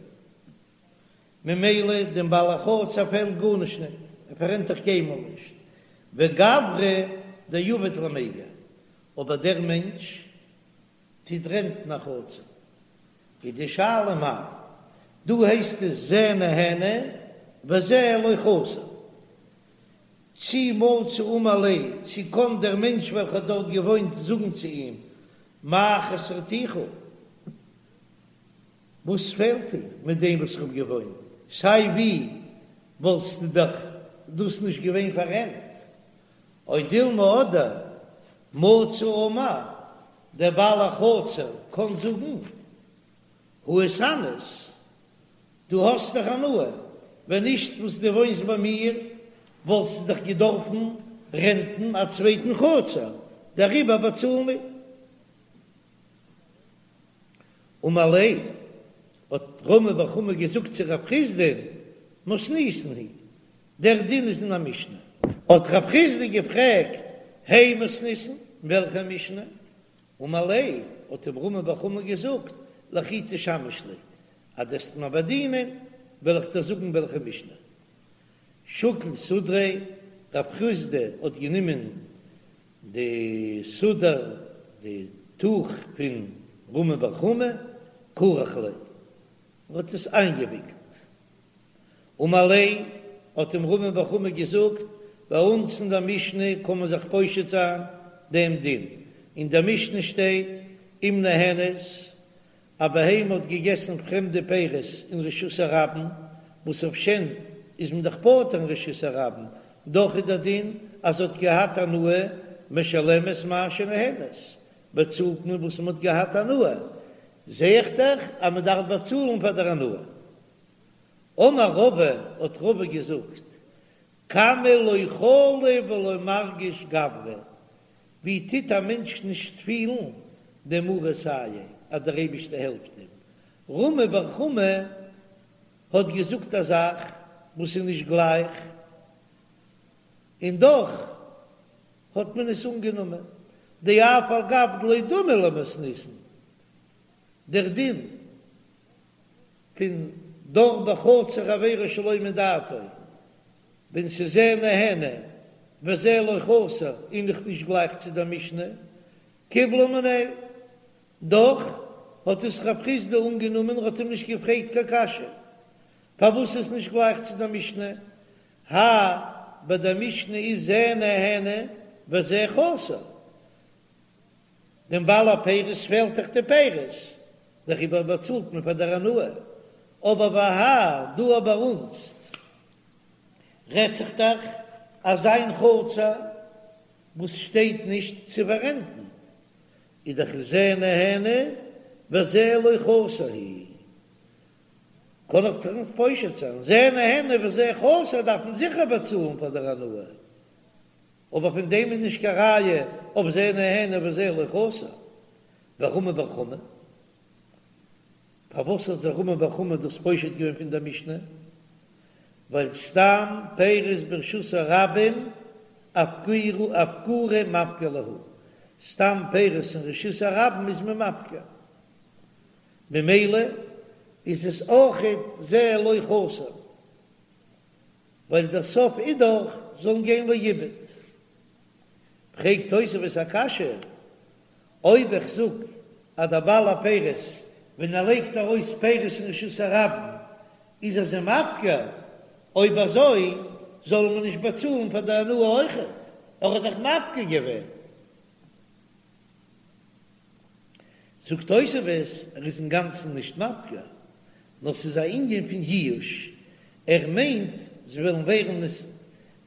ממילא דעם בעל החצר פעלט גארנישט ניט, ער פאררענט דאך קיינמאל נישט, וגברא דעביד למיגר, אבער דער מענטש טוט רענטן א חצר, איז די שאלה מאי, דא הייסט עס זה נהנה וזה לא חסר, צי מצי אמר ליה, צי קען דער מענטש וועלכער האט דארט געוואוינט זאגן צו אים, מה חסרתיך? וואס פעלט דיר מיט דעם וואס איך האב געוואוינט? סיי ווי וואלסטו דאך דאס נישט געווען פאררענט. או דילמא אדער מצי אמר, דער בעל החצר קען זאגן, הא איתהנית, דו האסט דאך הנאה, ווען נישט וואס דו וואוינסט ביי מיר וואלסטו דאך געדארפן רענטן א צווייטן חצר, דעריבער באצאל מיר. אמר ליה, האט רמי בר חמא געזאגט צו רב חסדא, מתניתין היא, דער דין איז אין א משנה. האט רב חסדא געפרעגט, הי מתניתין, וועלכע משנה? אמר ליה, האט אים רמי בר חמא געזאגט, לכי תשמש לי, אז דו וועסט מיר באדינען, וועל איך דיר זאגן וועלכע משנה. שקל סודריה, רב חסדא האט גענומען די סודר, די טוך פון רמי בר חמא, כרך ליה, און האט עס איינגעוויקלט. אמר ליה, האט אים רמי בר חמא געזאגט, ביי אונז אין דער משנה קען מען זיך פושט זיין דעם דין, אין דער משנה שטייט, אם נהנית, א בהמה האט געגעסן פרעמדע פירות אין רשות הרבים, וואס אויף שן איז מען דאך פטור אין רשות הרבים, דאך איז דער דין אז זי האט געהאט הנאה, משלמת מה שנהנית, באצאלט מען וואס מען האט געהאט הנאה, זע איך דאך אז מען דארף באצאלן פאר דער הנאה. אמר רבא, האט רבא געזאגט, כמה לא חלי ולא מרגיש גברא, ווי טוט א מענטש נישט פילן דמריה סייעיה אז דער אייבישטער העלפט אים? רמי בר חמא האט געזאגט א זאך וואס איז נישט גלייך, און דאך האט מען עס אנגענומען, דאף על גב דלא דמי למתניתין, דער דין פון דר בחצר חבירו שלא מדעתו, ווען ס'איז זה נהנה וזה לא חסר איז דאך נישט גלייך צו דער משנה, קיבלה מיניה, דאך האט עס רב חסדא אנגענומען און האט אים נישט געפרעגט קיין קשיא פארוואס איז נישט גלייך צו דער משנה, האי ביי דער משנה איז זה נהנה וזה חסר, דעם בעל הפירות פעלט דאך די פירות, דעריבער באצאלט מען פאר דער הנאה, אבער והאי דא ביי אונז רעדט זיך דאך אזא חצר וואס שטייט נישט צו פאררענטן, איז דאך זה נהנה וזה לא חסר הוא, קען איך דאך נישט פושט זיין, זה נהנה וזה חסר דארף מען זיכער באצאלן פאר דער הנאה. אבער פון דעם איז נישט קיין ראיה אויף זה נהנה וזה לא חסר. ורמי בר חמא, פארוואס האט זיך רמי בר חמא דאס פושט געווען פון דער משנה? ווייל סתם פירות ברשות הרבים אפקורי מפקר להו, סתם פירות אין רשות הרבים איז מען מפקיר, ממילא איז עס אויכעט זה לא חסר. ווייל דער סוף איז דאך זאלן גיין לאיבוד. פרעגט תוספות א קשיא, אויב איך זאג אז דער בעל הפירות ווען ער לייגט ארויס פירות אין רשות הרבים איז ער זיי מפקיר, אויב אזוי זאל מען נישט באצאלן פאר די הנאה אויכעט, ער האט דאך מפקיר געווען. זאגט תוספות, ער איז אינגאנצן נישט מפקיר, נאר ס'איז א ענין פון ייאוש, ער מיינט זיי וועלן ווערן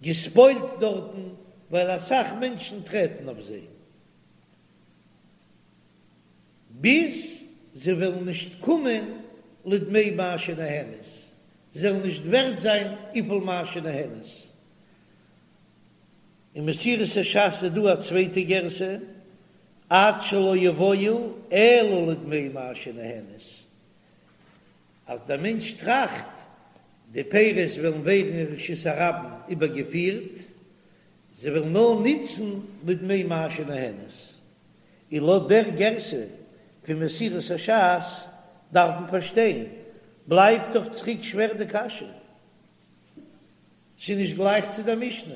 געספוילט דארטן ווייל אסאך מענטשן טרעטן אויף זיי, ביז זיי וועלן נישט קומען לדמי מה שנהנית, זיי וועלן נישט ווערט זיין וויפיל מה שנהנית. אין מסורת הש"ס איז דא א צווייטע גירסא, עד שלא יבואו אלא לדמי מה שנהנית, אז דער מענטש טראכט די פירות וועלן ווערן אין רשות הרבים איבערגעפירט, זיי וועלן נאר נוצן לדמי מה שנהנית, און לויט דער גירסא פון מסורת הש"ס דארף מען פארשטיין, בלייבט דאך צוריק שווער די קשיא. ס'איז נישט גלייך צו דער משנה,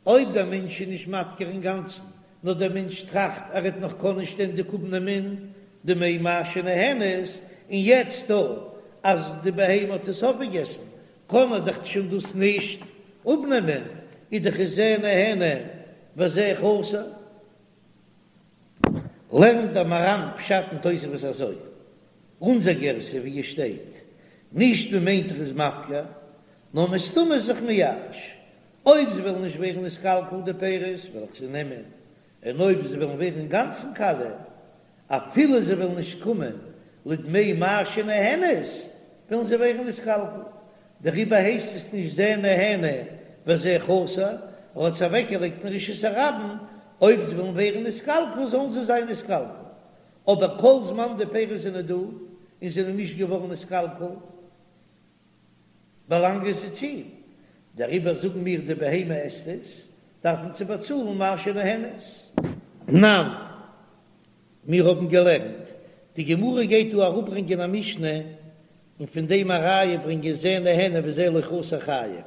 אויב דער מענטש איז נישט מפקיר אינגאנצן, נאר דער מענטש טראכט ער וועט נאך קענען שטענדיג אפנעמען דמי מה שנהנית, און יעצט דא אז די בהמה האט עס אויפגעגעסן קען ער דאך שוין דאס נישט אפנעמען, איז דאך איז זה נהנה וזה חסר. לערנט דער מהר"ם פשט אין תוספות אזוי, אונזער גירסא ווי עס שטייט, נישט מען מיינט ער איז מפקיר, נאר מסתמא איז זיך מייאש, אויב זיי וועלן נישט ווערן נתקלקל די פירות וועל איך זיי נעמען, און אויב זיי וועלן ווערן אינגאנצן קאליע, אפילו זיי וועלן נישט קומען לדמי מה שנהנית, וועלן זיי ווערן נתקלקל. דעריבער הייסט עס נישט זה נהנה וזה חסר, ער האט עס אוועקגעלייגט אין רשות הרבים, אויב זיי וועלן ווערן נתקלקל זאלן זיי זיין נתקלקל, אבער כל זמן די פירות זענען דא און זענען נישט געווארן נתקלקל, באלאנגען זיי צו אים, דעריבער זאגן מיר די בהמה עסט עס, דארף מען צו באצאלן מה שנהנית. תנן, מיר האבן געלערנט, די גמרא גייט דא אראפברענגען א משנה און פון דעם א ראיה ברענגען זה נהנה וזה לא חסר חייב,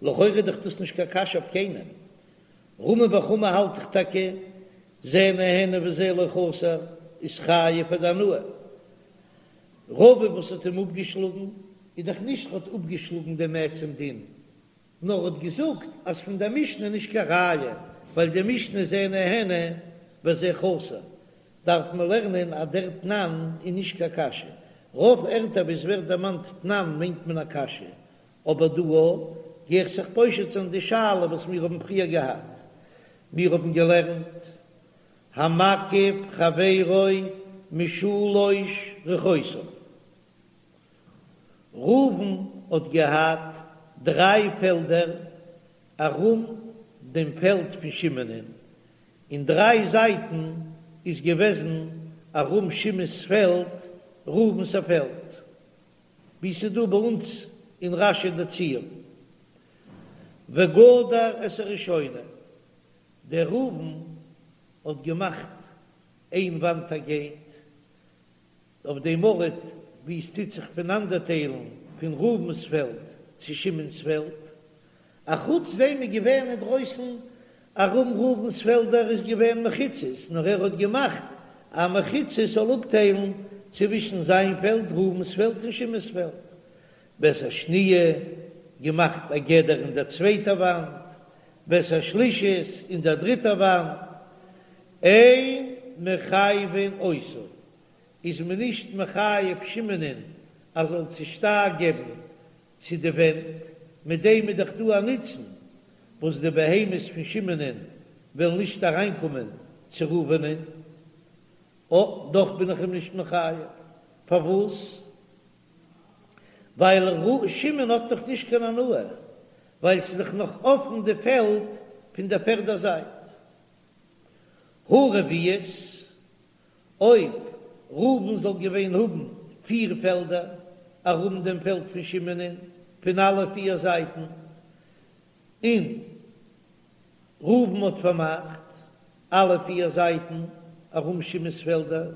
לכאורה איז דאך דאס נישט קיין קשיא אויף קיינעם, רמי בר חמא האלט דאך טאקע זה נהנה וזה לא חסר איז חייב פאר די הנאה, רבא וואס האט אים אפגעשלאגן איז דאך נישט האט אפגעשלאגן דעם עצם דין, נאר האט געזאגט אז פון דער משנה נישט קיין ראיה, ווייל די משנה זה נהנה וזה חסר, דארף מען לערנען אז דער תנן איז נישט קיין קשיא, רוב ערטער וואו עס ווערט דערמאנט תנן מיינט מען א קשיא, אבער דא גיי איך זיך פושט זיין די שאלה וואס מיר האבן פריער געהאט, מיר האבן געלערנט המקיף חברו משלש רוחותיו. ראובן האט געהאט דריי פעלדער ארום דעם פעלד פון שמעונ'ען, אין דריי זייטן איז געוועזן ארום שמעון'ס פעלד ראובן'ס א פעלד, ווי ס'איז דא ביי אונז אין רש"י די ציור. וגדר את הראשונה, דער ראובן האט געמאכט איין וואנט א געיט, אויף דעם ארט וואו עס טוט זיך פונאנדערטיילן פון ראובן'ס פעלד צו שמעון'ס פעלד. אחוץ דעם איז געווען אינדרויסן ארום ראובן'ס פעלדער איז געווען מחיצות, נאר ער האט געמאכט א מחיצה ס'זאל אפטיילן צווישן זיין פעלד, ראובן'ס פעלד און שמעון'ס פעלד. ואת השניה, געמאכט א גדר אין דער צווייטער וואנט, ואת השלישית, אין דער דריטער וואנט, אין מחייבין אותו, איז מען נישט מחייב שמעונ'ען אז זאל צושטייער געבן צו די ווענט, מיט דעם איז דאך דא א נוצן וואס די בהמות פון שמעונ'ען וועלן נישט אריינקומען צו ראובנ'ען, אה, דאך בין איך אים נישט מחייב, פארוואס? ווייל ר' שמעון האט דאך נישט קיין הנאה, ווייל ס'איז דאך נאך אפן די פעלד פון דער פערדער זייט. הא רביעית, אויב ראובן זאל געווען האבן פיר פעלדער ארום דעם פעלד פון שמעונ'ען פון אלע פיר זייטן, און ראובן האט פארמאכט אלע פיר זייטן ארום שמעון'ס פעלדער,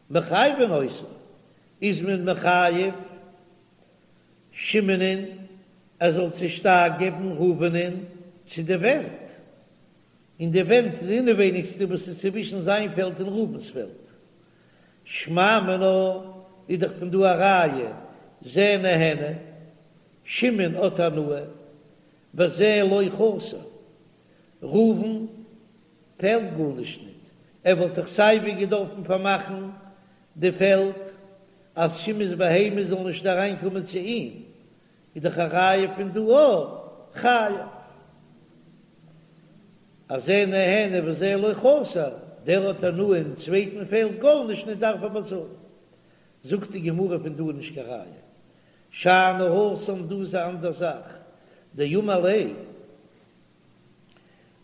מחייבין אותו, איז מען מחייב שמעונ'ען ער זאל צושטייער געבן ראובנ'ען צו די ווענט, און די ווענט די אינעווייניגסטע וואס איז צווישן זיין פעלד און ראובן'ס פעלד. שמע מינה איז דאך פון דא א ראיה, זה נהנה, שמעון האט הנאה, וזה לא חסר, ראובן פעלט גארנישט ניט, ער וואלט דאך סייווי געדארפן פארמאכן די פעלד אז שמעון'ס בהמות זאלן נישט אריינקומען צו אים, איז דאך א ראיה פון דא אויך חייב אז זה נהנה וזה לא חסר, דער האט הנאה אין צווייטן פעלט גארנישט ניט דארף ער באצאלן. זאגט די גמרא פון דא איז נישט קיין ראיה, שאני התם דא איז א אנדער זאך, דאמר ליה.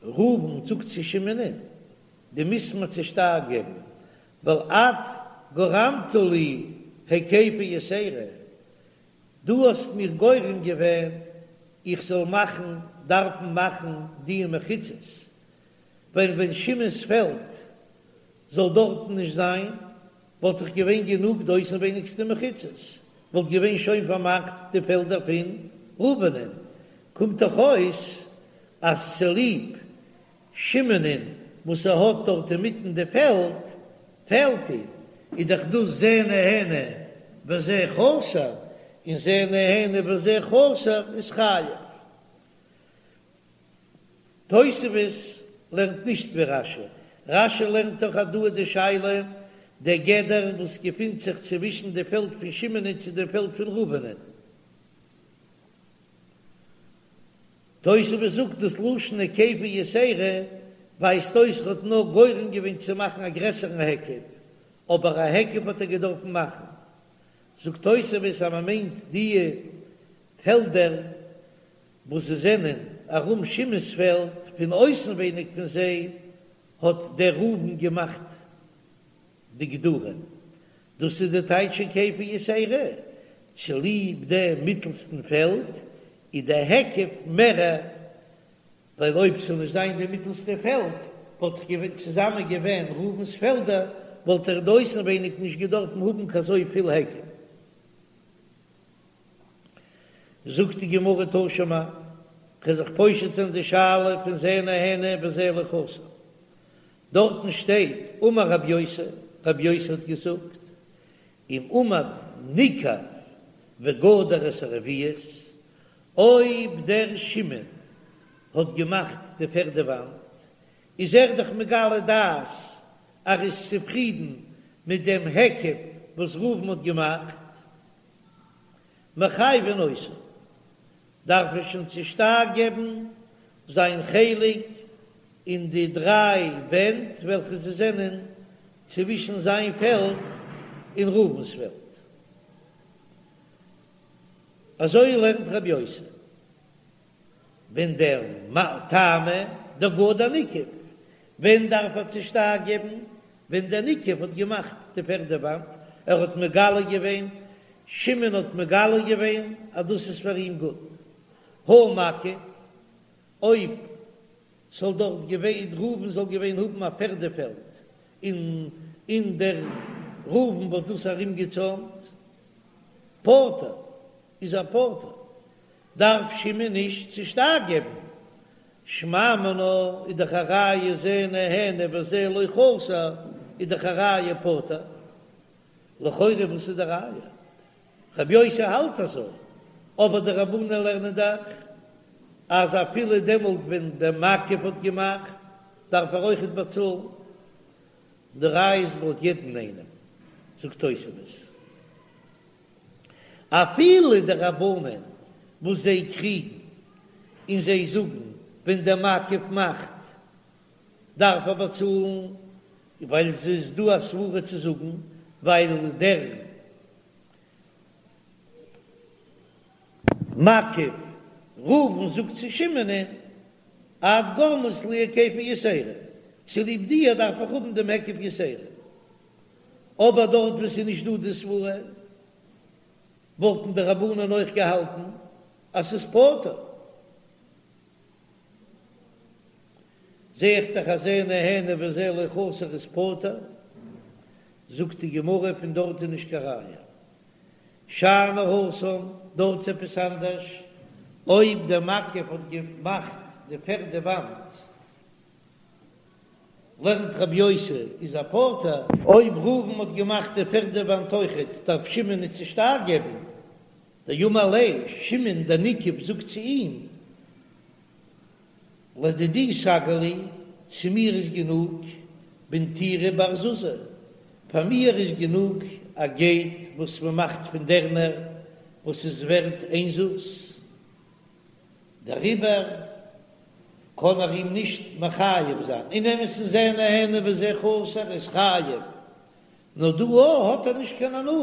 ראובן זאגט צו שמעונ'ען, דו מוזט מיר צושטייער געבן, ווייל את גרמת לי היקפה יתירה, דו האסט מיר גורם געווען איך זאל מאכן, דארפן מאכן די מחיצות, ווען ווען שמעון'ס פעלד זאל דארטן נישט זיין, וואלט דאך געווען גענוג די אויסנווייניגסטע מחיצות, וואלט געווען שוין פארמאכט די פעלדער פון ראובנ'ען, קומט דאך אויס אז צוליב שמעונ'ען וואס ער האט דארט אינמיטן די פעלד, פעלט אים, איז דאך דאס זה נהנה וזה חסר, און זה נהנה וזה חסר איז חייב. תוספות לערנט נישט ווי רש"י, רש"י לערנט דאך אז דא איז די שאלה דער גדר וואס געפינט זיך צווישן די פעלד פון שמעונ'ען צו דעם פעלד פון ראובנ'ען. תוספות זאגט דאס לשון היקפה יתירה ווייזט אויס ער האט נאר גורם געווען צו מאכן א גרעסערן היקף, אבער א היקף האט ער געדארפן מאכן. זאגט תוספות אז מען מיינט די פעלדער וואס זיי זענען ארום שמעון'ס פעלד, פון אויסנווייניג פון זיי האט דער ראובן געמאכט די גדרים, דאס איז די טייטש היקפה יתירה, צוליב דעם מיטלסטן פעלד איז דער היקף מערער, ווייל אויב ס'זאל נישט זיין די מיטלסטע פעלד וואלט דאך געווען צוזאמען געווען ראובן'ס פעלדער, וואלט ער די אויסנווייניג נישט געדארפן האבן קיין אזוי פיל היקף. זאגט די גמרא תא שמע, כ'וועל זיך פושט זיין די שאלה פון זה נהנה וזה לא חסר, דארטן שטייט אמר רב יוסי, רב יוסי האט געזאגט, אם עמד ניקב וגדר את הרביעית, אויב דער שמעון האט געמאכט די פערדע וואנט, איז ער דאך מגלה דעת אז ער איז צופרידן מיט דעם היקף וואס ראובן האט געמאכט, מחייבין אותו, דארף ער שוין צושטייער געבן זיין חלק אין די דריי ווענט וועלכע זיי זענען צווישן זיין פעלד און ראובן'ס פעלד. אזוי לערנט רבי יוסי. ווען דער טעמא דגדר ניקב, ווען דארף ער צושטייער געבן? ווען דער ניקב האט געמאכט די פערדע וואנט, ער האט מגלה געווען, שמעון האט מגלה געווען אז דאס איז פאר אים גוט. הא מקיף, אויב ס'זאל דארט געווען, ראובן זאל געווען האבן א פערדע פעלד, און און דער ראובן וואלט דאס ארומגעצוימט, פטור, איז ער פטור. דארף שמעון נישט צושטייער געבן, שמע מינה איז דאך א ראיה זה נהנה וזה לא חסר איז דאך א ראיה פטור, לכאורה וואס איז די ראיה? רבי יוסי האלט אזוי, אבער די רבנן לערנען דאך אז אפילו דעמאלט ווען דער מקיף האט געמאכט דארף ער אויכעט באצאלן, די ראיה איז לויט יעדן איינעם, זאגט תוספות. אפילו די רבנן וואס זיי קריגן און זיי זאגן ווען דער מקיף מאכט דארף ער באצאלן, ווייל עס איז דא א סברה צו זאגן ווייל דער מקיף ראובן זאגט צו שמעונ'ען את גרמת לי היקפה יתירה, צוליב דיר דארף איך האבן דעם היקף יתירה. אבער דארט וואו ס'איז נישט דא די סברה, וואלטן די רבנן אויך געהאלטן אז ס'איז פטור. זע איך דאך אז זה נהנה וזה לא חסר איז פטור, זאגט די גמרא פון דארט איז נישט קיין ראיה. שאני התם, דארט איז עפעס אנדערש, אויב דער מקיף האט געמאכט די פערדע וואנט, לערנט רבי יוסי איז ער פטור. אויב ראובן האט געמאכט די פערדע וואנט אויכעט דארף שמעון ניט צושטייער געבן, דאמר ליה שמעון דער ניקב זאגט צו אים לדידי סגי לי, צו מיר איז גענוג בנטירא בר זוזא, פאר מיר איז גענוג א געיט וואס מען מאכט פון דערנער וואס איז ווערט איין זוז. דעריבער קען ער אים נישט מחייב זיין, אין אמת'ן זה נהנה וזה חסר איז חייב, נאר דא האט ער נישט קיין הנאה,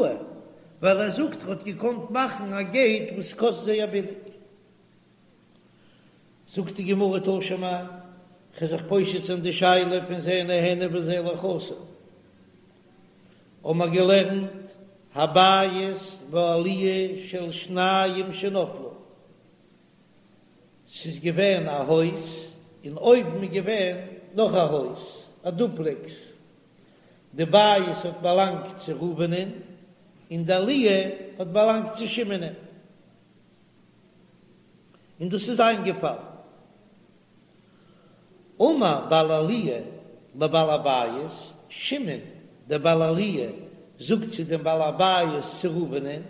ווייל ער זאגט ער האט געקאנט מאכן א געיט וואס קאסט זייער ביליג. זאגט די גמרא תא שמע. כ'וועל זיך פושט זיין די שאלה פון זה נהנה וזה לא חסר. האבן מיר געלערנט הבית והעליה של שניים שנפלו, ס'איז געווען א הויז און אויבן איז געווען נאך א הויז, א דופלעקס, די בית האט באלאנגט צו ראובנ'ען און די עליה האט באלאנגט צו שמעונ'ען, און דאס איז איינגעפאלן. אמר בעל העליה לבעל הבית, שמעון דער בעל העליה זאגט צו דעם בעל הבית צו ראובנ'ען,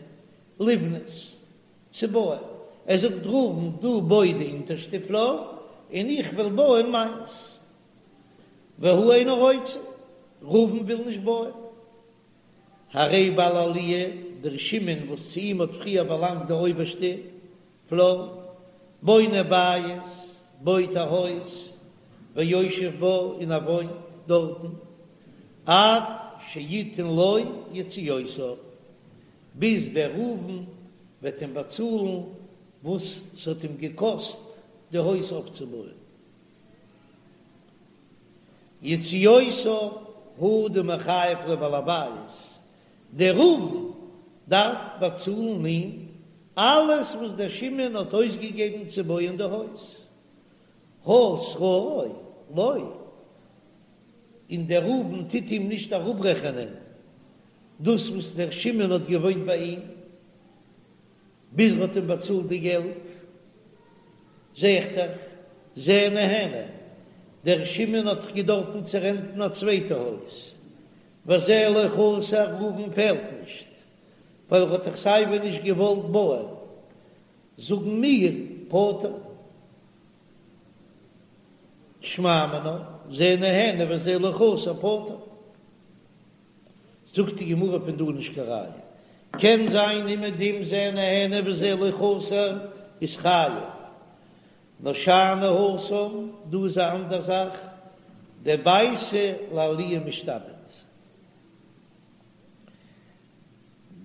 לבנות, צו בויען, ער זאגט ראובן דו בוי די אונטערשטע פלאר און איך וועל בויען מיינס, והוא אינו רוצה, ראובן וויל נישט בויען, הרי בעל העליה, דער שמעון וואס צו אים האט פריער באלאנגט די אויבערשטע פלאר, בונה בית, בויט א הויז, ויושב בה, און ער וואוינט דארטן, עד שיתן לו יציאותיו, ביז דער ראובן וועט אים באצאלן וואס ס'האט אים געקאסט די הויז אויפצובויען. יציאותיו הוא דמיחייב ליה בעל הבית, דער ראובן דארף באצאלן אים אלעס וואס דער שמעון האט אויסגעגעבן צו בויען די הויז, הא שכרו לא, און דער ראובן טוט אים נישט אראפרעכענען דאס וואס דער שמעון האט געוואוינט ביי אים ביז ער האט אים באצאלט די געלט, זע איך דאך, זה נהנה, דער שמעון האט דאך געדארפן צו רענטן א צווייטע הויז, וזה לא חסר, ראובן פעלט נישט, ווייל ער האט דאך סייווי נישט געוואלט בויען, זאגן מיר פטור. שמע מינה, זה נהנה וזה לא חסר פטור. זאגט די גמרא פון דא נישט קיין ראיה, קען זיין אומעדום זה נהנה וזה לא חסר איז חייב, נאר שאני התם, דא איז א אנדער זאך, דביתא לעליה משתעבד,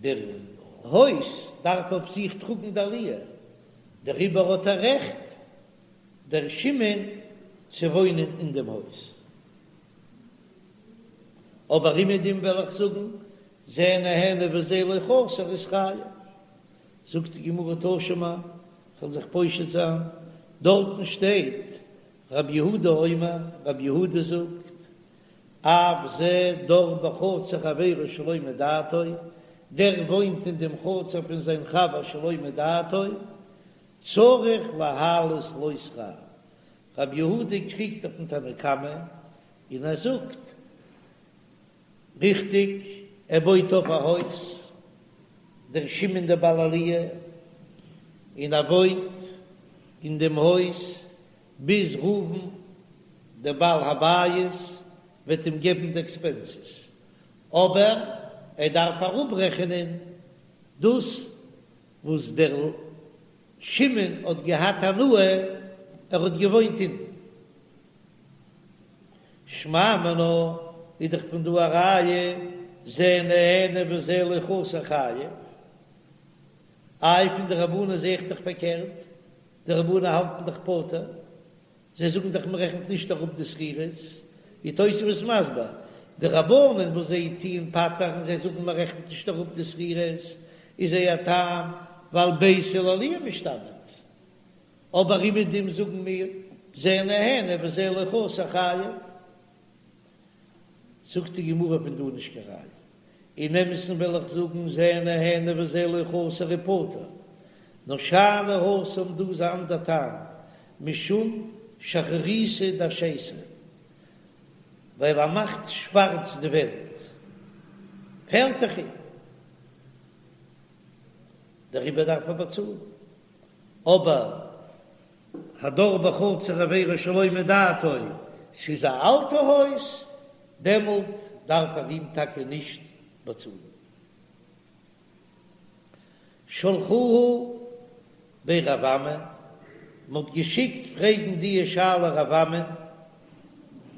דער הויז דארף אויף זיך טראגן די עליה, דעריבער האט ער רעכט דער שמעון צו וואוינען אין דעם הויז. אבער אומעדום וועל איך זאגן, זה נהנה וזה לא חסר איז חייב. זאגט די גמרא תא שמע, כ'וועל זיך פושט זיין, דארטן שטייט רב יהודה אומר, רב יהודה זאגט, אף זה דר בחצר חברו שלא מדעתו, דער וואוינט אין דעם חצר פון זיין חבר שלא מדעתו, צריך להעלות לו שכר. רב יהודה קריגט אויפן תנא קמא און ער זאגט, ריכטיג, ער בויט אויף א הויז, דער שמעון דער בעל עליה, און ער וואוינט אין דעם הויז ביז ראובן דער בעל הבית וועט אים געבן די עקספענסעס, אבער ער דארף אראפרעכענען דאס וואס דער שמעון האט געהאט הנאה, ער האט געוואוינט אונטן. שמע מינה איז דאך פון דא א ראיה, זה נהנה וזה לא חסר חייב. איי פון די רבנן זעה איך דאך פארקערט, די רבנן האלטן דאך פטור, זיי זאגן דאך מען רעכנט נישט אראפ די שכירות, ווי תוספות מסביר, די רבנן וואס זיי טוען פטר'ן, זיי זאגן מען רעכנט נישט אראפ די שכירות, איז זייער טעם ווייל ביתא לעליה משתעבד, אבער אומעדום זאגן מיר זה נהנה וזה לא חסר חייב. זאגט די גמרא פון דא נישט קיין ראיה. אין אמת'ן וועל איך זאגן זה נהנה וזה לא חסר איז פטור. נאר שאני התם דא איז א אנדער טעם, משום שחרוריתא דאשייתא, ווייל ער מאכט שווארץ די ווענט, פעלט דאך אים, דעריבער דארף ער באצאלן. אבער הדר בחצר חבירו שלא מדעתו, ס'איז א אלטע הויז, דעמאלט דארף ער אים טאקע נישט באצאלן. שלחוה בי רב אמי, מ'האט געשיקט פרעגן די שאלה רב אמי,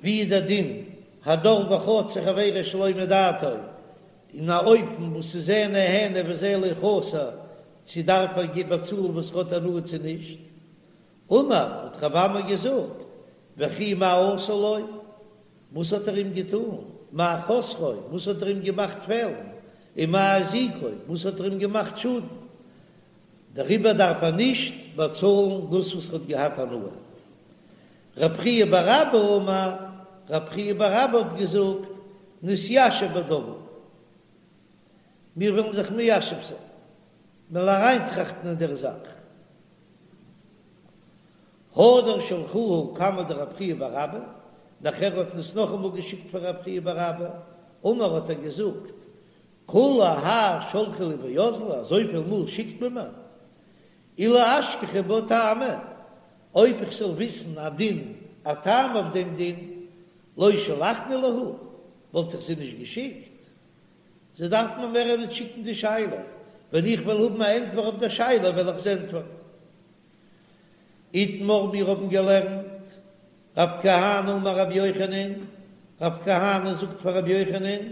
ווי איז דער דין הדר בחצר חבירו שלא מדעתו, אין א אופן וואס איז זה נהנה וזה לא חסר, צו דארף ער באצאלן וואס ער האט הנאה צו נישט? אמר, האט רב אמי געזאגט, וכי מה עשה לו, וואס האט ער אים געטאן? מה חסרו, וואס האט ער אים געמאכט פעלן? ומה הזיקו, וואס האט ער אים געמאכט שאדן? דעריבער דארף ער נישט באצאלן דאס וואס ער האט געהאט הנאה. רב חייא בר אבא אמר, רב חייא בר אבא האט געזאגט, נתיישב בדבר, מיר וועלן זיך מיישב זיין, מ'וועלן אריינטראכטן אין דער זאך. הדר שלחוה קמיה דרב חייא בר אבא, נאכער האט מען עס נאכאמאל געשיקט פאר רב חייא בר אבא, אמר האט ער געזאגט, כולי האי שלחו לי ואזלי, אזויפיל מאל שיקט מען מיר, אילו אשכחי בה טעמא, אויב איך זאל וויסן א דין, א טעם אויף דעם דין, לא שלחנא להו, וואלט איך זיי נישט געשיקט. זיי דארפן מיר מער נישט שיקן די שאלה, ווען איך וועל האבן א ענטפער אויף דער שאלה וועל איך זיי ענטפערן. איתמר מיר האבן געלערנט, רב כהנא אמר רבי יוחנן, רב כהנא זאגט פאר רבי יוחנן,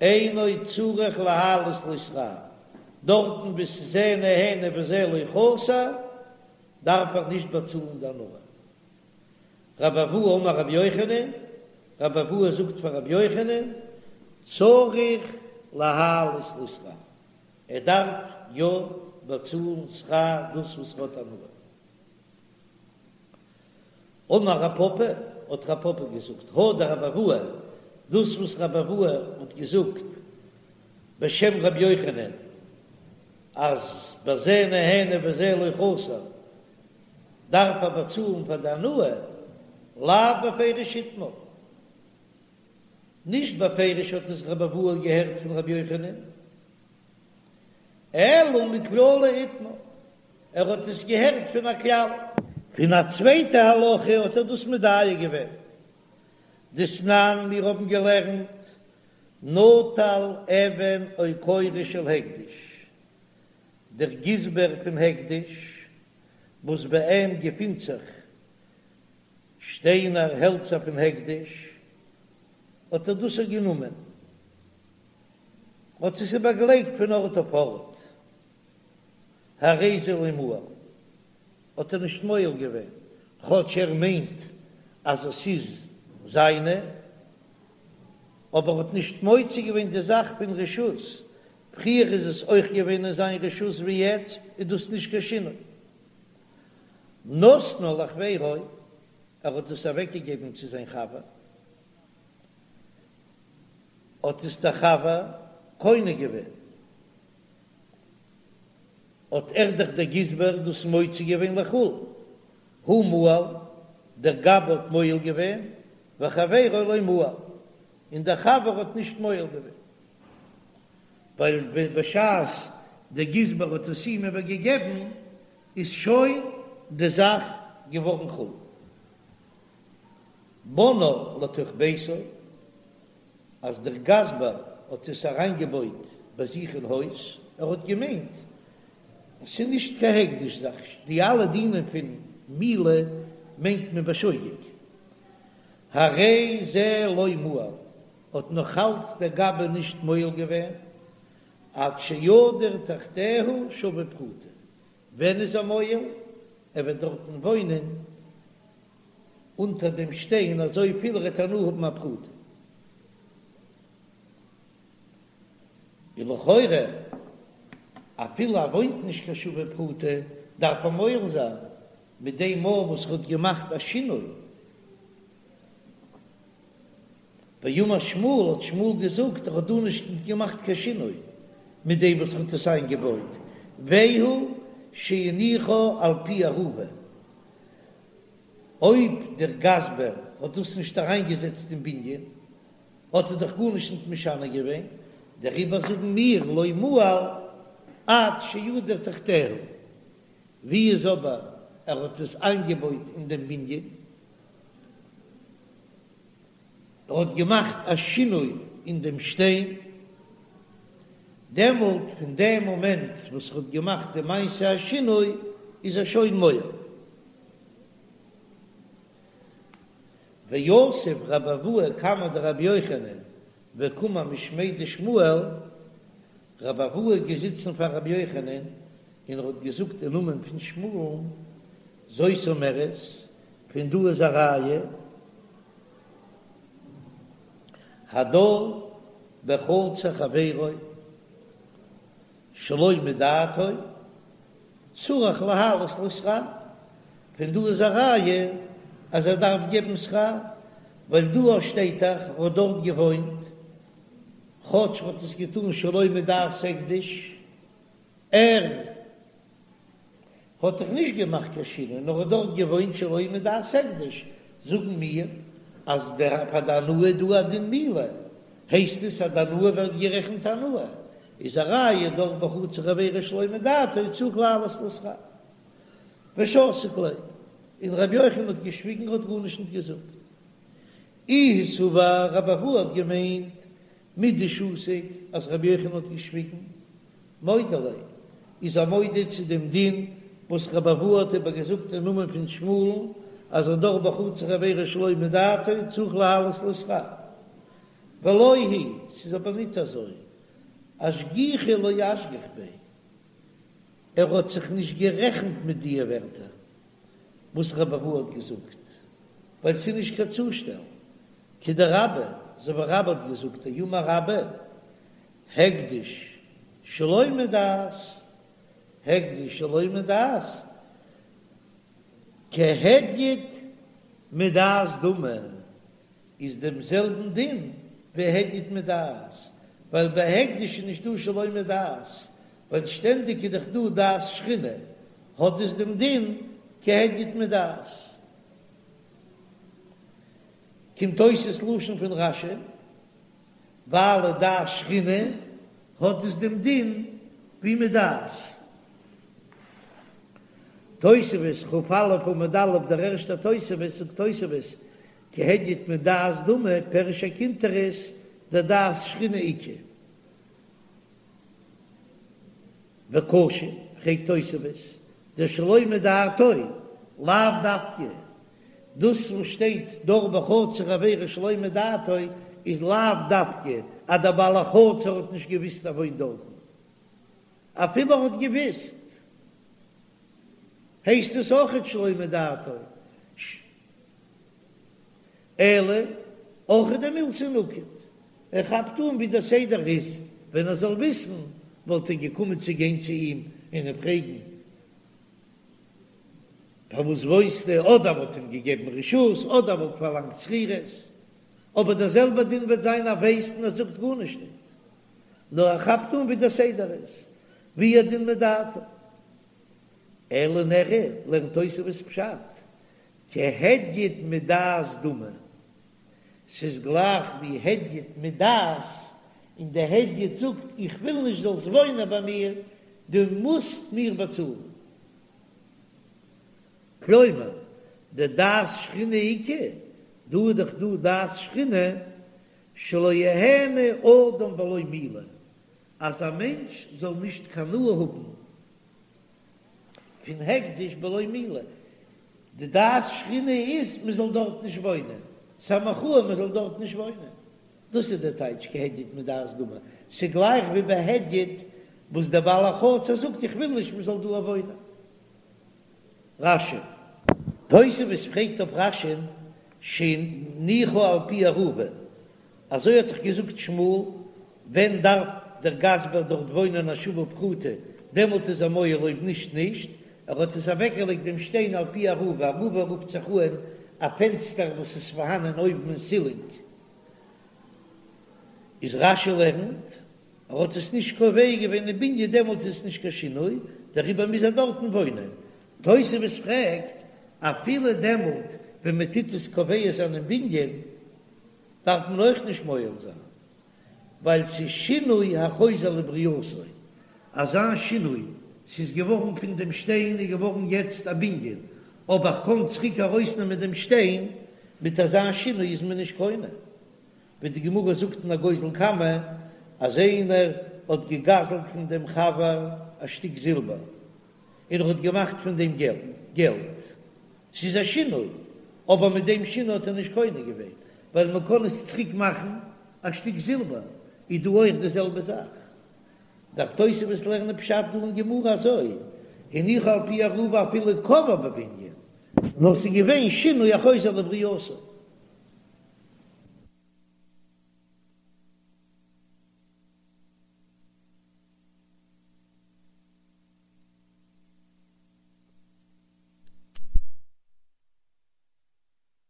אינו צריך להעלות לו שכר, דארטן וואו ס'איז זה נהנה וזה לא חסר, דארף ער נישט באצאלן די הנאה. רבי אבהו אמר רבי יוחנן, רבי אבהו זאגט פאר רבי יוחנן, צריך להעלות לו שכר, ער דארף יא באצאלן שכר דאס וואס ער האט הנאה. אמר רב פפא, האט רב פפא געזאגט, הא דרבי אבהו, דאס וואס רבי אבהו האט געזאגט בשם רבי יוחנן, אז בזה נהנה וזה לא חסר, דארף ער באצאלן פאר די הנאה, לאו בפירוש איתמר. נישט בפירוש האט עס רבי אבהו געהערט פון רבי יוחנן, אלא מכללא איתמר, ער האט עס געהערט פון א כלל. פון א צווייטע הלכה האט ער דאס מדייק געווען. דתנן, מיר האבן געלערנט, נטל אבן או קורה של הקדש, דער גזבר פון הקדש, וואס ביי אים געפינט זיך שטיינער, העלצער פון הקדש, האט ער דאס גענומען, האט עס איבערגעלייגט פון ארט אויף ארט, הרי זה לא מעל, האט ער נישט מועל געווען, כאטש ער מיינט אז עס איז זיינע, אבער האט נישט מוציא געווען די זאך פון רשות, פריער איז עס אויך געווען אין זיין רשות ווי יעצט, איז דאס נישט קיין שינוי. נתנה לחבירו, ער האט עס אוועקגעגעבן צו זיין חבר, האט עס דער חבר קונה געווען, האט ער דאך דער גזבר דאס מוציא געווען לחול, הוא מעל, דער גבאי האט מועל געווען, וחבירו לא מעל, און דער חבר האט נישט מועל געווען, ווייל בשעת דער גזבר האט עס אים איבערגעגעבן איז שוין די זאך געווארן חול. בנאה לתוך ביתו, אז דער גזבר האט עס אריינגעבויט ביי זיך אין הויז, ער האט געמיינט עס איז נישט קיין הקדש זאך, די אלע דינים פון מעילה מיינט מען בשוגג, הרי זה לא מעל, האט נאך אלץ דער גבאי נישט מועל געווען, עד שידור תחתיה שווה פרוטה, ווען איז ער מועל? ער וועט דארטן וואוינען אונטער דעם שטיין אזוי פיל ער וועט הנאה האבן א פרוטה. און לכאורה אפילו ער וואוינט נישט קיין שווה פרוטה דארף ער מועל זיין מיט דעם מאל וואס ער האט געמאכט א שינוי. ואמר שמואל האט שמואל געזאגט ער האט דא נישט געמאכט קיין שינוי מיט דעם וואס ער האט עס איינגעבויט, והוא שהניחה על פי ארובה, אויב דער גזבר האט דאס נישט אריינגעזעצט אין בנין האט ער דאך גארנישט נישט משנה געווען, דעריבער זאגן מיר לא מעל עד שידור תחתיה, ווי איז אבער ער האט עס איינגעבויט אין דעם בנין? ער האט געמאכט א שינוי אין דעם שטיין, דעמאלט פון דעם מאמענט וואס ער האט געמאכט די מעשה השינוי איז ער שוין מועל. ויתיב רבי אבהו קמיה דרבי יוחנן וקאמר משמיה דשמואל, רבי אבהו איז געזיצן פאר רבי יוחנן און ער האט געזאגט אין נאמען פון שמואל'ן, זאת אומרת. פון דא איז א ראיה, הדר בחצר חברו שלא מדעתו צריך להעלות לו שכר, פון דא איז א ראיה אז ער דארף געבן שכר, ווייל דא שטייט דאך ער האט דארט געוואוינט, כאטש ער האט עס געטאן שלא מדעת הקדש, ער האט דאך נישט געמאכט קיין שינוי, נאר האט דארט געוואוינט שלא מדעת הקדש, זאגן מיר אז דער פאר די הנאה איז דא א דין מעילה, הייסט עס אז די הנאה ווערט גערעכנט הנאה, איז א ראיה דר בחצר חברו שלא מדעתו צריך להעלות לו שכר. ושתיק ליה, און רבי יוחנן האט געשוויגן האט גארנישט נישט געזאגט. איהו סבר רבי אבהו האט געמיינט מדשתיק אז רבי יוחנן האט געשוויגן, מודה ליה, איז ער מודה צו דעם דין וואס רבי אבהו האט איבער געזאגט אין נאמען פון שמואל'ן אז הדר בחצר חברו שלא מדעתו צריך להעלות לו שכר. ולא היא, ס'איז אבער ניט אזוי, אשגוחי לא אשגח ביה, ער האט זיך נישט גערעכנט מיט דיע ווערטער וואס רבי אבהו האט געזאגט, ווייל ס'איז נישט קיין צושטעל, כדרבה, אזוי ווי רבה האט געזאגט, דאמר רבה, הקדש שלא מדעת, הקדש שלא מדעת, כהדיוט מדעת דמי, איז דעם זעלבן דין ווי הדיוט מדעת, ווייל ביי הקדש איז נישט דא שלא מדעת, ווייל שטענדיג איז דאך דא דעת שכינה, האט עס דעם דין כהדיוט מדעת. קומט אויס עס לשון פון רש"י, ווייל דעת שכינה האט עס דעם דין ווי מדעת. תוספות כ"א עמוד א', דער ערשטער תוספות, זאגט תוספות, כהדיוט מדעת דמי פירש הקונטרס דדעת שכינה איכא. וקשה, פרעגט תוספות, דשלא מדעתו, לאו דווקא, דאס וואס שטייט דר בחצר חברו שלא מדעתו איז לאו דווקא אז דער בעל החצר האט נישט געוויסט ער וואוינט דארטן, אפילו ער האט געוויסט הייסט עס אויכעט שלא מדעתו. אלא אורחא דמילתא נקט, ער כאפט אן ווי דער סדר איז, ווען ער זאל וויסן וואלט ער געקומען צו גיין צו אים און אים פרעגן פארוואס וואוינסטו, אדער וואלט אים געגעבן רשות, אדער וואלט פארלאנגט שכירות, אבער דער זעלבער דין וועט זיין ער ווייסט און ער זאגט גארנישט ניט, נאר ער כאפט אן ווי דער סדר איז, והוא הדין מדעתו. אלא נראה, לערנט תוספות פשט, כהדיוט מדעת דמי, ס'איז גלייך ווי הדיוט מדעת, און די הדיוט זאגט איך וויל נישט זאלסט וואוינען ביי מיר, דו מוזט מיר באצאלן. כלומר, דדעת שכינה איכא, דא איז דאך דא דעת שכינה, שלא יהנה אדם בלא מעילה, אז א מענטש זאל נישט קיין הנאה האבן פון הקדש בלא מעילה, די דעת שכינה איז מען זאל דארט נישט וואוינען, ס'איז א מחאה מען זאל דארט נישט וואוינען, דאס איז דער טייטש כהדיוט מדעת דמי, ס'איז גלייך ווי ביי הדיוט וואס דער בעל החצר זאגט איך וויל נישט מען זאל דא וואוינען. רש"י. תוספות פרעגט אויף רש"י'ן שהניחה על פי ארובה, אזוי האט דאך געזאגט שמואל, ווען דארף דער גזבר דארט וואוינען א שווה פרוטה, דעמאלט איז ער מועל אויב נישט נישט, ער האט עס אוועקגעלייגט דעם שטיין על פי ארובה, ארובה רופט זיך אהן א פענסטער וואס איז פארהאנען אויבן אין סילינג, איז רש"י לערנט ער האט עס נישט קובע געווען אין בנין דעמאלט איז עס נישט קיין שינוי, דעריבער מוז ער דארטן וואוינען. תוספות פרעגט, אפילו דעמאלט ווען מען טוט עס קובע זיין אין בנין דארף מען אויך נישט מועל זיין, ווייל ס'איז שינוי החוזר לברייתו, אזא שינוי, ס'איז געווארן פון דעם שטיין איז געווארן יעצט א בנין, אבער איך קען צוריק ארויסנעמען דעם שטיין, מיט אזא שינוי איז מען נישט קונה. ווי די גמרא זאגט אין הגוזל קמא, אז איינער האט געגזלט פון דעם חבר א שטיק זילבער, און ער האט געמאכט פון דעם געלט, ס'איז א שינוי, אבער מיט דעם שינוי האט ער נישט קונה געווען, ווייל מען קען עס צוריק מאכן א שטיק זילבער, איז דא אויך די זעלבע זאך. דארף תוספות לערנען פשט דא אין גמרא אזוי, הניחה על פי ארובה אפילו קבעה בבנין. נאר ס'איז געווען שינוי החוזר לברייתו.